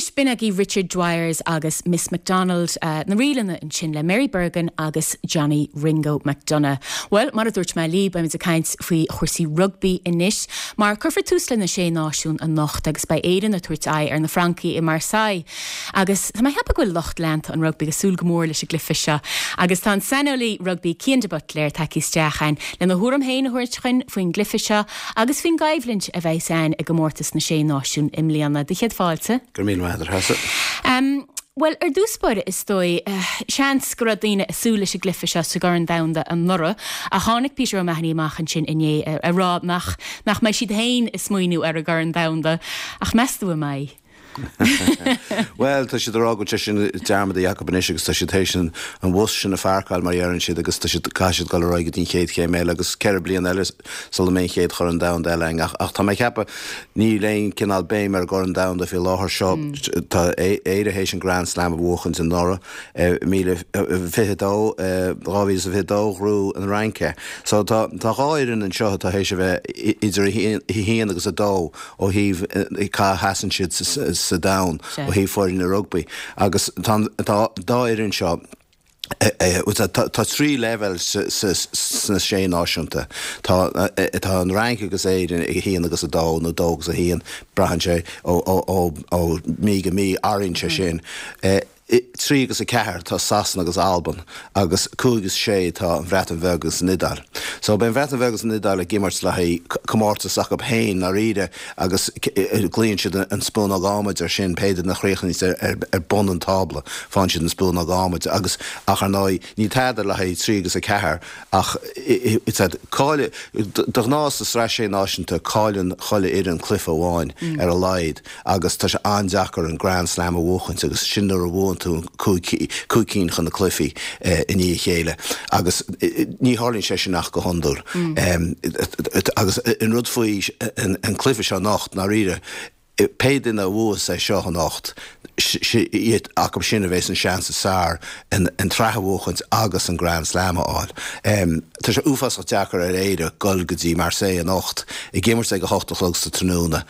Anois b'in agaibh Richard Dwyers agus Miss McDonald, na ríleanna ansin le Mary Bergin agus Johnny Ringo McDonagh. Bhuel, mar a dúirt mé libh, beimid ag caint faoi chúrsaí rugbaí anois, mar cuirfear tús le na Sé Náisiún anocht agus beidh Éirinn ag tabhairt aghaidh ar na Francaigh i Marseille. Agus tá mé ag ceapadh go bhfuil lucht leanta an rugbaí ag súil go mór leis an gcluiche seo. Agus tá an saineolaí rugbaí Cian de Buitléir tagtha isteach againn lena thuairim féin a thabhairt chugainn faoin gcluiche seo agus faoin gcoimhlint a bheas ann i gcomórtas na Sé Náisiún i mbliana. Do chéad fáilte. Go raibh míle maith agat, a Threasa. Bhuel, ar dtús báire, is dóigh, seans go raibh daoine ag súil leis an gcluiche seo sa gCorn Domhanda anuraidh, ach tháinig Peter O'Mahony amach ansin inné ag rá nach nach mbeidh siad féin ag smaoineamh ar an gCorn Domhanda. Ach meas tú an mbeidh? Bhuel, tá siad ag rá go bhfuil sé sin dearmadta acu anois agus tá siad théis an bhus sin a pháirceáil, mar a dheireann siad, agus tá siad, caithfidh siad dul ar aghaidh go dtí an chéad chéim eile agus 4 bliana eile sula mbeidh an chéad Chorn Domhanda eile againn. Ach tá mé ag ceapadh, níl aon cineál béim ar an gCorn Domhanda faoi láthair seo. Tá Éire théis an Grand Slam a bhuachaint anuraidh, 2022, 2022, ghnóthaigh an Fhrainc é. So tá dhá fhoireann anseo atá théis a bheith idir a haon agus a dó ó thaobh cá sheasann siad sa domhan ó thaobh foirne rugbaí agus tá an dá fhoireann seo tá trí leibhéal sna sé náisiúnta. Tá tá an Fhrainc agus Éirinn ag 1 agus 2 nó 2 agus 1, braitheann sé ó mí go mí, athraíonn sé sin. 3 agus 4 tá Sasana agus Albain agus 5 agus 6 tá an Bhreatain Bheag agus an Iodáil. So beidh an Bhreatain Bheag agus an Iodáil ag imirt le haghaidh comórtas acu féin ndáiríre agus glaonn siad an spúnóg adhmaid ar sin, pé duine a chríochnaíos ar bun an tábla faigheann siad an spúnóg adhmaid agus ach ar ndóigh níl tada le haghaidh 3 agus 4 ach cailleadh, de ghnáth sa Sraith Sé Náisiúnta cailleann chuile fhoireann cluiche amháin ar a laghad. agus tá sé an-deacair an Grand Slam a bhuachaint agus sin nuair a bhuann tú 5 cinn de na cluichí i ndiaidh a chéile agus ní tharlaíonn sé sin ach go hiondúil. Agus an rud faoi an cluiche seo anocht, ndáiríre, pé duine a bhuas é seo anocht, iad acu sin a bheas an seans is fearr an tsraith a bhuachaint agus an Grand Slam a fháil. Tá sé uafásach deacair ar Éire dul go dtí Marseille anocht, ag imirt ag a hocht a chlog sa tráthnóna,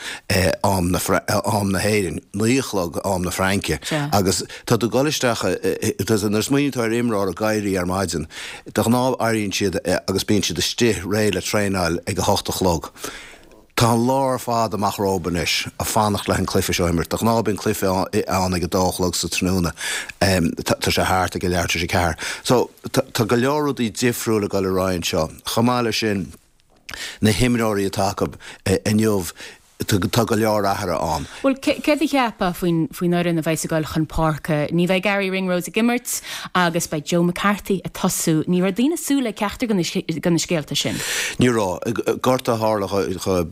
am am na hÉireann, 9 a chlog am na Fraince, agus tá tú ag dul isteach, nuair a smaoiníonn tú ar imreoir ag éirí ar maidin, de ghnáth éiríonn siad agus bíonn siad istigh réidh le traenáil ag a hocht a chlog. Tá an lá ar fad amach rompu anois ag fanacht le an cluiche seo a imirt. De ghnáth bíonn cluiche ann ag a dó a chlog sa tráthnóna. Tá sé thart ag a leathuair tar éis a ceathair. So, tá go leor rudaí difriúil ag dul ar aghaidh anseo. Chomh maith leis sin, na himreoirí atá acu inniu, tá go leor athruithe ann. Bhuel, céard a cheapfá faoin fhoireann a bheas ag dul chun páirce? Ní bheidh Garry Ringrose ag imirt agus beidh Joe McCarthy ag tosú. Ní raibh daoine ag súil le ceachtar de na scéalta sin. Ní raibh. Gortú a tharla do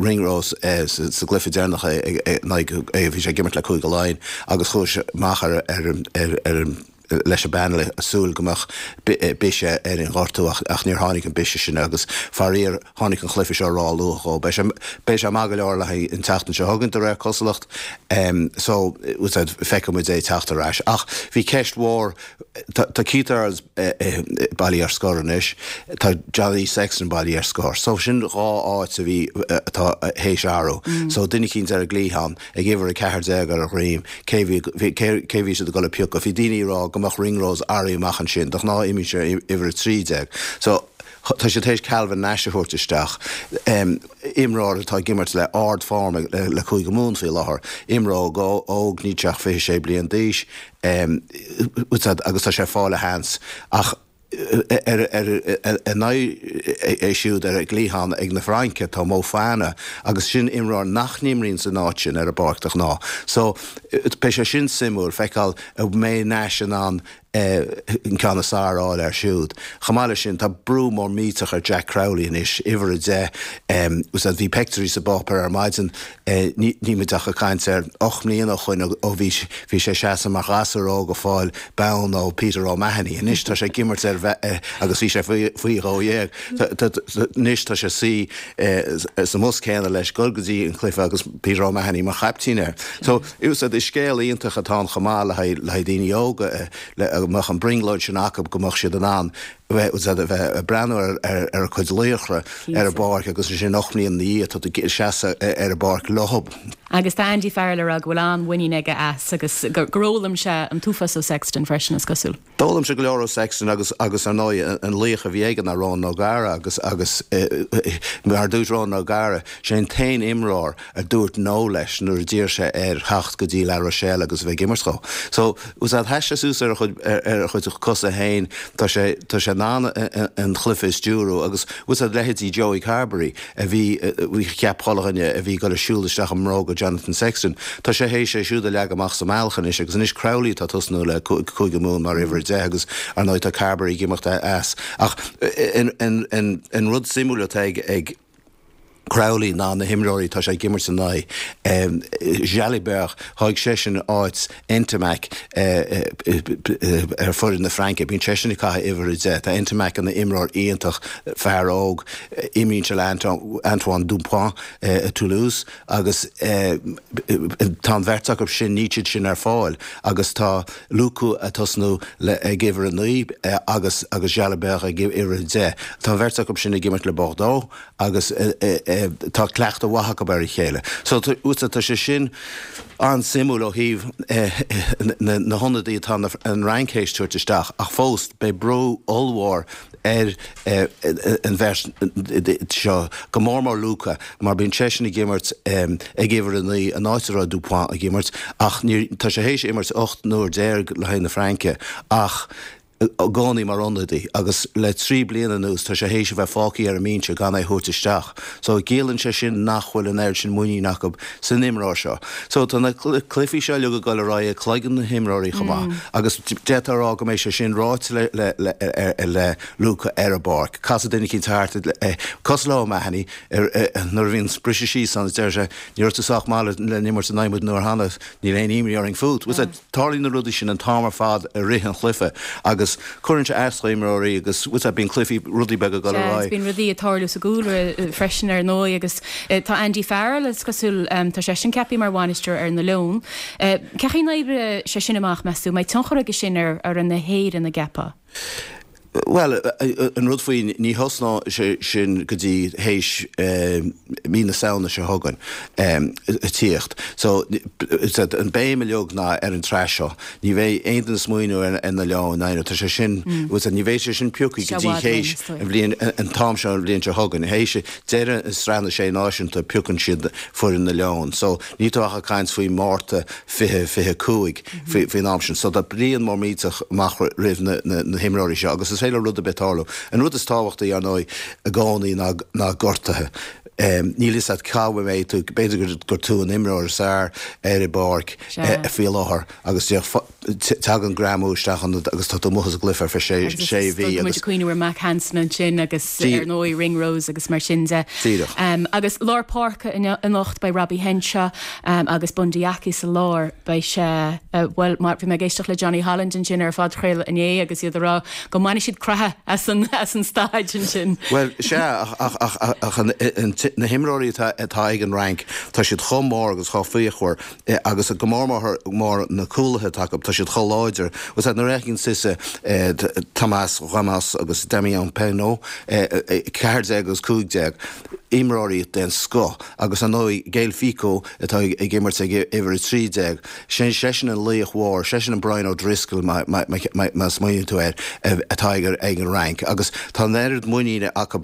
Ringrose sa gcluiche deireanach in aghaidh, bhí sé ag imirt le Cúige Laighean agus chuaigh sé amach ar an leis an bpainéal ag súil go mbeadh biseach ar an ghortú ach níor tháinig an biseach sin agus faraor tháinig an chluiche seo ró-luath dhó. Beidh sé beidh sé maith go leor le haghaidh an tseachtain seo chugainn de réir cosúlacht so feicfidh muid é ag teacht ar ais. Ach bhí ceist mhór, tá Keith Earls bailithe ar scor anois, tá Johnny Sexton bailithe ar scor so sin dhá áit a bhí atá théis athrú so duine eicínt ar an gcliathán. ag uimhir 14 ar a dhroim, cé bhí, cé bhí siad ag dul a piocadh. Bhí daoine ag rá go mbeadh Ringrose éirithe amach ansin, de ghnáth imíonn sé uimhir 13. So, tá siad théis Calvin Nash a thabhairt isteach, imreoir atá ag imirt le ard-form le Cúige Mumhan faoi láthair, imreoir óg, níl sé ach 26 bliain d'aois, agus tá sé ag fáil a sheans. Ach. Ina aghaidh siúd ar an gcliathán ag na Fraince tá Moefana agus sin imreoir nach n-imríonn san áit sin ar an bpáirc de ghnáth. So beidh sé sin suimiúil feiceáil an mbeidh Nash in ann an ceann is fearr a fháil air siúd. Chomh maith leis sin tá brú mór millteach ar Jack Crowley anois, uimhir 10. Bhí peictiúirí sa bpáipéar ar maidin Níl muid ach ag caint ar 8 mbliana ó shoin ó bhí bhí sé ag seasamh mar ghasúr óg ag fáil bonn ó Peter O'Mahony. Anois tá sé ag imirt ar agus bhí sé faoi dhó dhéag. Anois tá sé ag suí sa mbus céanna leis dul go dtí an cluiche agus Peter O'Mahony mar chaiptín air. So is scéal iontach atá ann chomh maith le haghaidh daoine óga le go mbeadh an brionglóid sin acu go mbeadh siad in ann. Bheith ag breathnú ar a cuid laochra ar an bpáirc agus ansin 8 mbliana ina dhiaidh tá tú ag seasamh ar an bpáirc leo. Agus tá Andy Farrell ag rá go bhfuil an-mhuinín aige as agus gur fhoghlaim sé an t-uafás ó Sexton freisin, is cosúil. D'fhoghlaim sé go leor ó Sexton agus agus ar ndóigh an laoch a bhí aige ná Ronan O'Gara agus agus mar a dúirt Ronan O'Gara, sé an t-aon imreoir a dúirt no leis nuair a d'iarr sé air theacht go dtí La Rochelle agus a bheith ag imirt dhó. So, bhfuil a fhios a'd, sheas sé suas ar a chuid, ar a chuid cosa féin, tá sé, tá sé in ann an chluife a stiúrú agus, bhfuil a fhios a'd, leithéidí Joey Carbery a bhí, bhí, cheap chuile dhuine a bhí ag dul ag siúl isteach i mbróga Jonathan Sexton, tá sé théis é siúd a leagadh amach sa mbealach anois agus anois Crowley atá ag tosnú le Cúige Mumhan mar uimhir a 10 agus, ar ndóigh, tá Carbery ag imeacht as. Ach an, an, an, an rud suimiúil atá ag, ag. Crowley ná na himreoirí atá sé ag imirt ina aghaidh. Jalibert, thóg seisean áit Ntamack ar foireann na Fraince. Bíonn seisean ag caitheamh uimhir 10. Tá Ntamack ina imreoir iontach, fear óg. Imríonn sé le Antoine Dupont i Toulouse agus tá an bheirt acu sin, níl siad sin ar fáil agus tá Lucu ag tosnú ag uimhir 9 agus agus Jalibert ag uimhir 10. Tá an bheirt acu sin ag imirt le Bordeaux agus tá cleachtadh mhaith acu ar a chéile. So tá sé sin an-suimiúil ó thaobh na hionadaí atá an Fhrainc théis tabhairt isteach ach fós beidh brú ollmhór ar an bheirt seo, go mór mór Lucu mar bíonn seisean ag imirt ag uimhir 9 an áit a raibh Dupont ag imirt ach tá sé théis imirt 18 n-uair le haghaidh na Fraince ach i gcónaí mar ionadaí agus le 3 bliana anuas tá sé théis a bheith fágtha ar an mbinse gan é a thabhairt isteach. So ciallaíonn sé sin nach bhfuil an oiread sin muinín acu san imreoir seo. So tá na cluichí seo uilig ag dul ar aghaidh i gcloigeann na himreoirí chomh maith agus d'fhéadfá a rá go mbeidh sé sin ráite le le le le Luca ar an bpáirc. Casfaidh duine eicínt thart cosúil le O'Mahony nuair a bhíonn briseadh síos ann is deir sé ní raibh tú sách maith le n-imirt in aghaidh muid an uair cheana, níl aon imní orainn fút. Tarlaíonn na rudaí sin an t-am ar fad i rith an chluiche agus cuireann sé as do imreoirí agus bhfuil a fhios a'd bíonn cluichí, rudaí beaga ag dul ar Sea, agus aghaidh. bíonn rudaí ag tarlú sa gcúlra freisin ar ndóigh agus tá Andy Farrell, is cosúil, tá seisean ceaptha mar bhainisteoir ar na Leoin. Cén chaoi a n-oibreoidh sé sin amach, meas tú? An mbeidh tionchar aige sin ar fhoireann na hÉireann, an gceapfá? Bhuel, an rud faoi, ní thosnóidh sé sin go dtí théis mí na Samhna seo chugainn ag tíocht. So, an béim uilig ná ar an tsraith seo. Ní bheidh aon duine ag smaoineamh ar na Leoin, tá sé sin, ní bheidh sé sin pioctha go dtí théis an bhliain, an t-am seo an bhliain seo chugainn. Théis deireadh an Sraith na Sé Náisiúnta piocann siad foireann na Leon. So, níl tú ach ag caint faoi Márta 2025 faoin am sin. So tá bliain mór millteach amach roimh na himreoirí seo agus is féidir le rud ar bith tarlú. An rud is tábhachtaí, ar ndóigh, i gcónaí ná gortuithe. Níl a fhios agat cá mbeidh tú, b'fhéidir gur tú an imreoir is fearr ar an bpáirc faoi láthair agus Tagann greamú isteach ionat agus tá tú amuigh as an gcluiche ar feadh sé mhí agus. Agus muid ag cuimhneamh ar Mack Hansen ansin agus ar ndóigh Ringrose agus mar sin de. Díreach. Agus lár páirce anocht beidh Robbie Henshaw agus Bundee Aki sa lár. Beidh sé, bhuel, bhí mé ag éisteacht le Johnny Holland ansin ar an phodchraoladh inné agus iad ag rá go mbainfidh siad croitheadh as an as an staid ansin. Bhuel, sea, ach ach ach na himreoirí atá ag an Fhrainc, tá siad chomh mór agus chomh fíochmhar Agus go mór mór na cúlaithe atá acu, tá siad chomh láidir. Bhfuil a fhios agat, nuair a fheiceann tusa Thomas Ramos agus Damian Penaud, 14 agus 15, imreoirí den scoth, agus ar ndóigh Gaël Fickou atá ag imirt ag uimhir 13, sin seisean an laoch mhór, seisean an Brian O'Driscoll má smaoiníonn tú air, atá ag an Fhrainc. Agus tá an oiread muiníne acu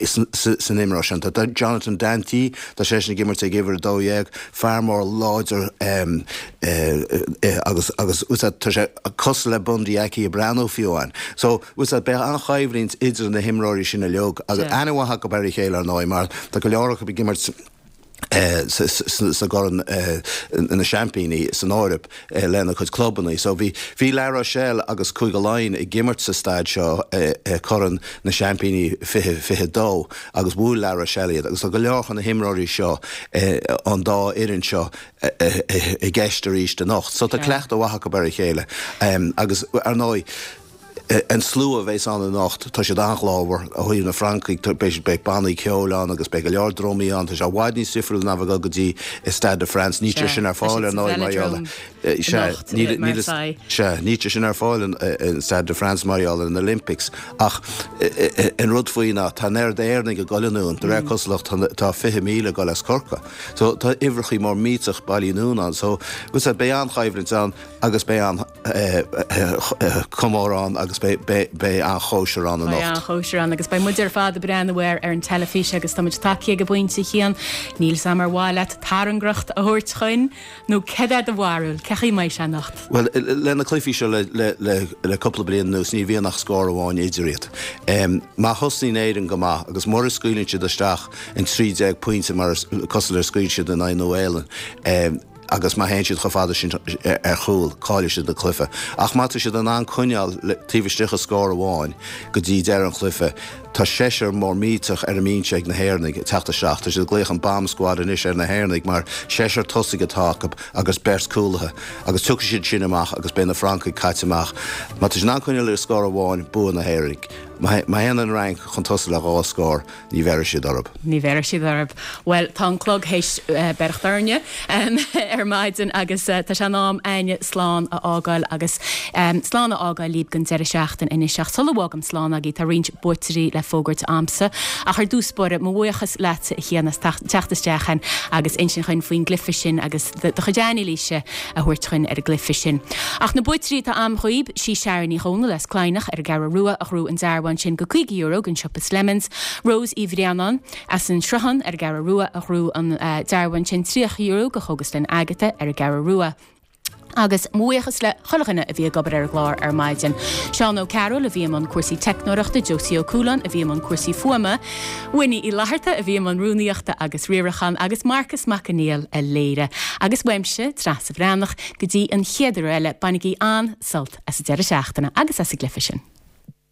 san imreoir sin. Tá Jonathan Danty, tá seisean ag imirt ag uimhir 12, Fear mór láidir agus agus bhfuil a fhios agat tá sé cosúil le Bundee Aki ag breathnú fiú amháin. So bhfuil a fhios agat beidh an-choimhlint idir na himreoirí sin uilig agus aithne mhaith acu ar a chéile ar ndóigh mar tá go leor acu ag imirt sa gCorn na Seaimpíní san Eoraip. lena gcuid clubanna. So bhí, bhí La Rochelle agus Cúige Laighean ag imirt sa staid seo i Corn na Seaimpíní 2022 agus bhuail La Rochelle iad agus tá go leor de na himreoirí seo ón dá fhoireann seo i gceist arís anocht. So tá cleachtadh mhaith acu ar a chéile agus ar ndóigh. An slua a bheas ann anocht, tá siad an-ghlórmhar. Ó thaobh na Francaigh, beidh beidh bannaí ceoil ann agus beidh go leor drumaí ann. Tá sé i bhfad níos difriúla ná bheith ag dul go dtí Stade de France. Níl sé sin ar fáil ar ndóigh mar gheall Sea, níl sea, níl sé sin ar fáil in Stade de France mar gheall ar na Olympics. Ach an rud faoi ná tá an oiread Éireannaigh ag dul anonn, de réir cosúlacht tá 20,000 ag dul as Corcaigh. So tá uimhreachaí mór millteach bailithe anonn ann. So beidh an-choimhlint ann agus beidh an-chomóradh ann agus beidh an-chóisir ann anocht. Beidh an-chóisir ann agus beidh muid ar fad ag breathnú air ar an teilifís agus tá muid tagtha ag an bpointe, a Chian. Níl 's a'm ar mhaith leat tairngreacht a thabhairt chugainn nó céard é do bharúil, cén chaoi a mbeidh sé anocht? Bhuel, le na cluichí seo le cúpla bliain anuas ní bhíonn ach scór amháin idir iad. Má thosnaíonn Éirinn go maith agus mura scaoileann siad isteach an 13 pointe mar cosúil le scaoil siad in aghaidh Nua-Shéalainn, agus má théann siad chomh fada sin ar chúl, caillfidh siad an cluiche. Ach má tá siad in ann coinneáil taobh istigh de scór amháin go dtí deireadh an chluiche, tá seisear mór millteach ar an mbinse ag na hÉireannaigh ag teacht isteach. Tá siad ag glaoch an bomb squad anois ar na hÉireannaigh mar seisear tosaigh atá acu agus beirt cúlaithe. Agus tiocfaidh siad sin amach agus beidh na Francaigh caite amach. Má tá siad in ann coinneáil le scór amháin, bua na hÉireannaigh. Má théann an Fhrainc chun tosaigh le dhá scór, Ní bhéarfaidh siad orthu. Ní bhéarfaidh siad orthu. Bhuel, tá an clog théis beirteacht orainne ar maidin agus tá sé in am a'inne slán a fhágáil agus slán a fhágáil libh don deireadh seachtaine anois. Ach sula bhfágaim slán agaibh, tá roinnt buaiteoirí le fógairt a'msa. Ach ar dtús báire, mo bhuíochas leatsa a Chian as teacht isteach chugainn agus insint chugainn faoin gcluiche sin agus do chuid anailíse a thabhairt chugainn ar an gcluiche sin. Ach na buaiteoirí atá a'm dhaoib, sí Sharon Ní Dhomhnaill as Cladhnach ar an gCeathrú Rua a ghnóthaigh an dearbhán sin go €50 gon siopa Slemons, Rose Uí Bhraonáin as an Sruthán ar an gCeathrú Rua a ghnóthaigh an dearbhán sin €30 go Chógaslann Agatha ar an gCeathrú Rua. Agus mo bhuíochas le chuile dhuine a bhí ag obair ar an gclár ar maidin. Seán Ó Cearúil a bhí i mbun cúrsaí teicneoireachta, Josie Ó Cualáin a bhí i mbun cúrsaí fuaime, Winnie Uí Fhlatharta a bhí i mbun rúnaíochta agus riaracháin agus Marcas Mac Conghail a léirigh. Agus uaimse, Treasa Bhreathnach, go dtí an chéad uair eile, bainigí an-sult as an deireadh seachtaine agus as an gcluiche sin.